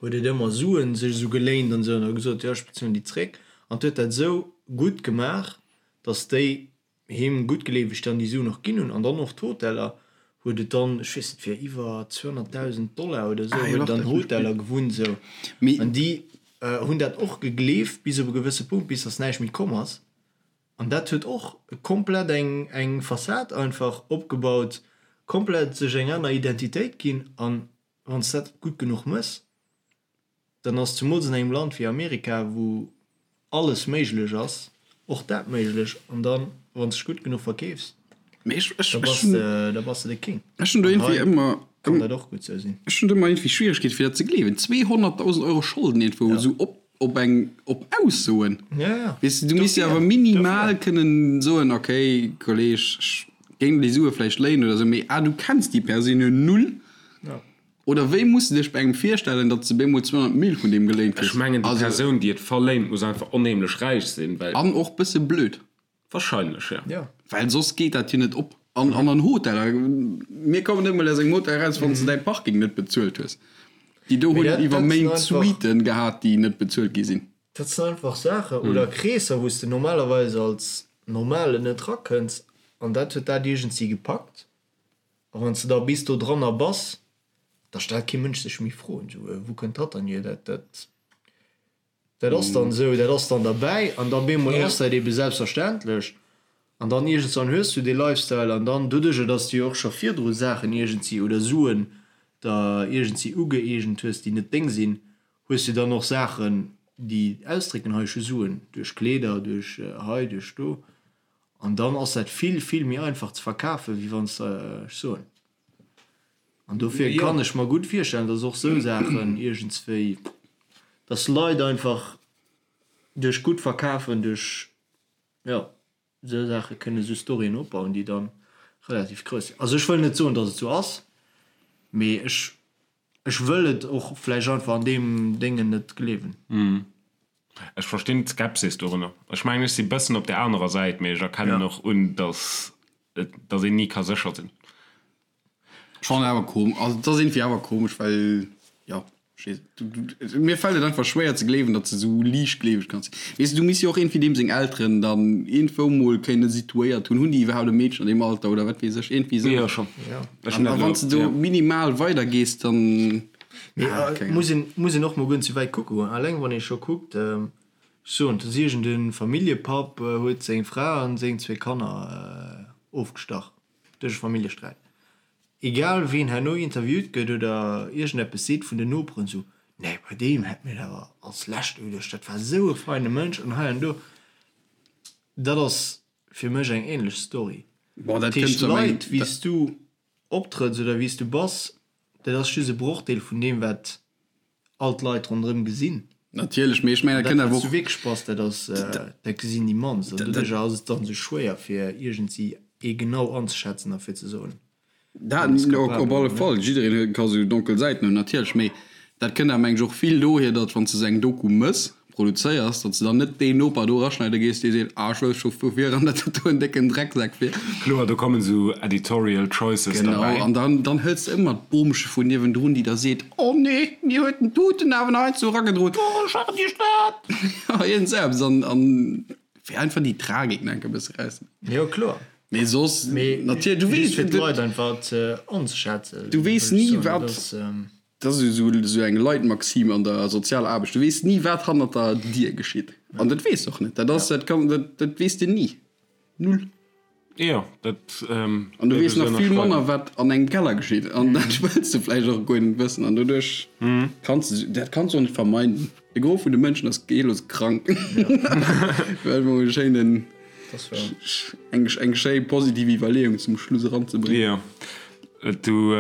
Speaker 1: huet et ëmmer Suen sech esou geléint an esou an huet gesot, jo ech bezuelen déi zréck. An huet dat esou gutt gemaach, datt déi him guttgleeweg dann déi Suen och ginn hunn. An dann och d'Hoteller huet et dann, ech weess net, fir iwwer 200.000 Dollar oder esou huet et an Hoteller gewunnt esou. An déi hunn dat och gegleeft bis op e gewësse Punkt, bis datt näischt méi komm ass. An dat huet och komplett eng eng Fassad einfach opgebaut, komplett sech eng aner Identitéit ginn an. Wann s dat gutt genuch mëss, dann ass zemools an engem Land wéi Amerika, wou alles méiglech ass, och dat méiglech. An dann, wann s dech gutt genuch verkeefs, da bass de, da bass de de King.
Speaker 2: Ech hunn do
Speaker 1: An
Speaker 2: iergendwéi
Speaker 1: hei
Speaker 2: ëmmer,
Speaker 1: kann dat och gutt sou sinn.
Speaker 2: ech hunn do ëmmer iergendwéi Schwieregkeete fir dat ze gleewen. 200.000 Euro Scholden iergendwou esou op, op eng, op Aussoen.
Speaker 1: Ja, ja.
Speaker 2: Weess de, du misst jo
Speaker 1: Dofir,
Speaker 2: awer minimal
Speaker 1: dofir.
Speaker 2: kënnen soen, okay, Kolleg, ech géing déi Sue vläicht léinen oder esou, mee ah, du kenns déi Persoun jo null.
Speaker 1: Ja.
Speaker 2: Oder wéi muss de dech bei engem virstellen, datt s de bemol 200 Mille vun deem geléint
Speaker 3: Ech
Speaker 2: kriss?
Speaker 3: mengen, déi
Speaker 2: Also.
Speaker 3: Persoun, déi et verléint, muss einfach onheemlech räich sinn, well.
Speaker 2: An och bësse blöd.
Speaker 3: Wahrscheinlech, jo.
Speaker 1: Ja.
Speaker 2: Well soss geet dat jo net op. An an an Hoteller, mir kommen net mol aus engem Hotel eraus, wann s de däi Parking net bezuelt hues. Déi do
Speaker 1: Mee
Speaker 2: hunn
Speaker 1: dat,
Speaker 2: iwwer
Speaker 1: dat sinn
Speaker 2: Méint
Speaker 1: einfach.
Speaker 2: Suiten gehat, déi net bezuelt gi sinn.
Speaker 1: Dat sinn einfach Saachen oder Kreesser, wou s de normalerweis als Normalen net rakënns. An dat huet dat iergendwéi gepackt. A wann s de da bis do dranner bass, da stellt kee Mënsch sech méi Froen, esou, Wou kënnt dat dann hier? Dat, dat, dat ass dann esou, dat ass dann derbäi. An da bemol ass dat ebe selbstverständlech. An dann iergendwann hues du dee Lifestyle an dann doduerjer, dass du jo och scho virdru Saachen iergendwéi oder Suen der iergendwéi ugëeegent hues, déi net deng sinn, hues du dann och Saachen, déi ausdrécken, hei ech hu Suen, duerch Kleeder, duerch hei, duerch do. An dann ass dat vill, vill méi einfach ze verkafen, wéi wann s de, ech soen. An dofir kann ech mer gutt virstellen, dass och esou Saachen iergendswéi, dass Leit einfach duerch gutt Verkafen, duerch, jo, esou Saache kënne esou Storyen opbauen, déi dann relativ grouss sinn. Also ech wëll net soen, dass et esou ass, mee ech Ech wëll et och vläicht einfach an deem Déngen net gleewen.
Speaker 3: Ech verstinn d'Skepsis dorunner. Ech mengen, ech si bëssen op där anerer Säit, mee ech erkennen och un, dass et, dass een ni ka sécher sinn.
Speaker 2: Ech fannen awer kom, also et ass iergendwéi awer komesch, well jo, ech weess net, mir fält et einfach schwéier ze gleewen, datt se esou liichtgleeweg kann sinn. Weess de, du misst jo och iergendwéi deem seng Elteren dann iergendwou mol kéinne situéiert hunn. Hunn déi iwwerhaapt e Meedchen an deem Alter oder wat weess ech, iergendwéi esou.
Speaker 3: Jo, schonn. Ech
Speaker 2: An wann s de do minimal weider gees, dann.
Speaker 1: Mee muss een, muss een och mol guer net sou wäit kucke goen. Alleng wann ee scho kuckt, ech soen, et ass iergend e Familljepapp huet seng Fra an seng zwee Kanner ofgestach duerch e Familljesträit. Egal ween herno interviewt gëtt oder iergendeppes seet vun den Noperen, sou, nee bei deem hätt mir et awer als lescht ugeduecht, dat war sou e feine Mënsch an hei an do. Dat ass fir mech eng ähnlech Story.
Speaker 2: Bon, dat
Speaker 1: Dat heescht,
Speaker 2: kënnt zwar meng.
Speaker 1: d'Leit, wéi s du optrëtts oder wéi s du bass, dat ass just e Brochdeel vun deem, wat all d'Leit ronderëm gesinn.
Speaker 2: Natierlech, mee ech mengen, dat
Speaker 1: Dat,
Speaker 2: kënnt
Speaker 1: wat
Speaker 2: awer
Speaker 1: s du
Speaker 2: och.
Speaker 1: wierklech bass, dat ass, dat gesinn déi mannst. An doduercher ass et dann esou schwéier, fir iergendwéi ee genau anzeschätzen a fir ze soen,
Speaker 2: Dat
Speaker 1: deen ass
Speaker 2: op
Speaker 1: capabel
Speaker 2: alle
Speaker 1: oder net.
Speaker 2: Fall, jiddereen huet ka sou donkel Säiten hunn, natierlech, mee dat kënnt awer mengen ech och vill dohier, datt wann s de sou eng Doku mëss, produzéiers, datt s de dann net deen Noper do eraschneide gees, dee seet, ah ech wouss scho vu viran, datt dat do en décken Drecksak wier.
Speaker 3: Kloer, do kommen sou editorial choices
Speaker 2: Genau,
Speaker 3: derbäi.
Speaker 2: an dann, dann hëls de ëmmer d'Bomche vun niewendrun, déi da seet, oh nee, mir huet den Tuten awer nach eins do eragedroen, oh ech war déi Stad! Ja, iergend sou eppes, an, an fir einfach déi Tragik nach enk e bësse erauszehuelen.
Speaker 1: Jo, kloer.
Speaker 2: Mee soss,
Speaker 1: Mee
Speaker 2: natierlech, du
Speaker 1: just
Speaker 2: weess,
Speaker 1: fir d'Leit einfach ze anzeschätzen,
Speaker 2: du weess
Speaker 1: wëll ech
Speaker 2: ni,
Speaker 1: soen, dat
Speaker 2: wat.
Speaker 1: ass.
Speaker 2: Dat ass esou esou eng Leitmaxime an der sozialer Aarbecht, du weess ni wat hannert der Dier geschitt. An dat weess de och net. Dat ass, dat kann, dat, dat weess de ni. Null.
Speaker 3: Jo, dat
Speaker 2: An du weess nach vill manner wat an engem Keller geschitt. An dat wëlls de vläicht och guer net wëssen. An doduerch kanns de, dat kanns de och net vermeiden. De Gros vun de Mënschen ass geellos krank. Fir emol e schéinen, eng, eng schéi positiv Iwwerleeung zum Schluss eranzebréngen.
Speaker 3: Jo, du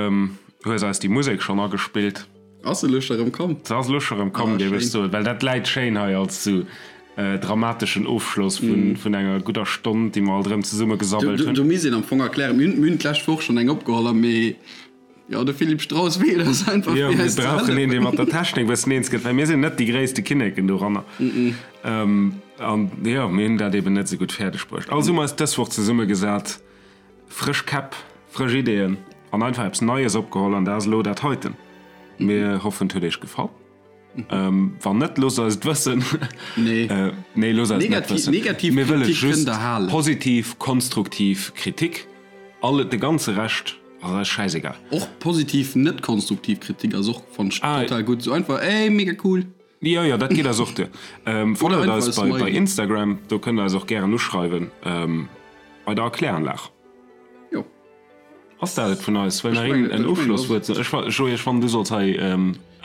Speaker 3: hues eis déi Musek schonn agespillt.
Speaker 2: Ass se elo scho rëm komm?
Speaker 3: Se ass elo scho rëm komm, géif ech soen, well dat läit schéin hei als sou dramateschen Ofschloss vun enger gudder Stonn, déi mer alt erëm zesumme gesammelt hunn.
Speaker 2: Do misst een am Fong erklären, mir hunn d'lescht Woch schonn eng opgeholl, mee jo, de Philippe Strauss feelt eis einfach,
Speaker 3: Jo,
Speaker 2: fir
Speaker 3: mir
Speaker 2: eis ze
Speaker 3: brauchen een, dee
Speaker 2: hëllefen.
Speaker 3: mat der Technik e bëssen eens gëtt, well mir sinn net déi gréisste Kinneken doranner. An jo, mir hunn dat eben net esou gutt fäerdeg bruecht. Also hu mer eis dës Woch zesummegesat. Frësch Käpp, frësch Ideeën an einfach eppes Neies opgeholl an dat ass elo dat heiten. Mir hoffen et huet iech gefall. Wann net, loosst eis et wëssen.
Speaker 2: Nee.
Speaker 3: Nee, loosst eis et net wëssen.
Speaker 2: Negativ
Speaker 3: Mir wëlle
Speaker 2: Kritik kënnt
Speaker 3: just
Speaker 2: der halen.
Speaker 3: positiv, konstruktiv Kritik. All, de ganze Rescht ass eis schäisegal.
Speaker 2: Och positiv, net konstruktiv Kritik ass och, fannen ech, total gutt. Sou einfach, ey, mega cool.
Speaker 3: Jo, jo, dat geet eis och duer. Followt eis bei Instagram, do kënnt der eis och gären uschreiwen bei der Erkläranlag.
Speaker 2: Jo.
Speaker 3: Ass dat et vun eis? Wëll nach een en Ofschlosswuert soen? Ech, Joé, ech fannen, du solls hei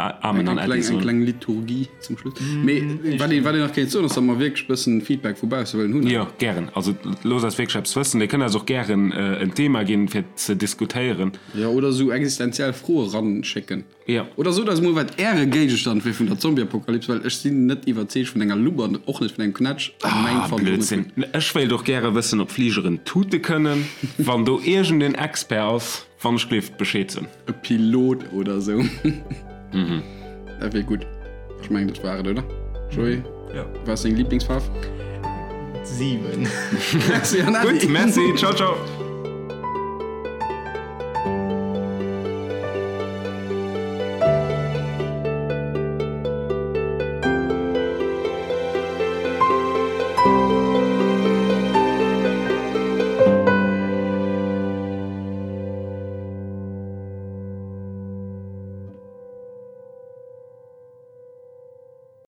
Speaker 3: Amen an Äddi soen.
Speaker 2: Eng kleng Liturgie zum Schluss. Mee wat een, wat een nach kéint soen, ass, datt mer wierklech e bëssen Feedback vu bausse wëllen hunn.
Speaker 3: Jo, gären. Also loosst eis wierklech eppes wëssen. Dir kënnt eis och gären en Thema ginn, fir ze diskutéieren.
Speaker 2: Jo, oder esou existenziell Froe ranschécken.
Speaker 3: Jo.
Speaker 2: Oder sot eis mol wat äre Géigestand wier vun der Zombieapokalyps, well ech sinn net iwwerzeegt vun enger Lupp an och net vun engem Knätsch a mäin
Speaker 3: Ah,
Speaker 2: fannt och net
Speaker 3: Blödsinn.
Speaker 2: gutt.
Speaker 3: Ech wéilt och gäre wëssen ob Fligeren tute kënnen. Wann do iergend een Expert ass, wann ech gleeft Bescheed soen.
Speaker 2: E Pilot oder sou. Dat wier gutt. Ech mengen dat war et, oder? Joé?
Speaker 1: Jo.
Speaker 2: Wat ass deng Lieblingsfaarf?
Speaker 1: 7.
Speaker 2: Merci an Äddi.
Speaker 3: Gutt, merci. Ciao, ciao.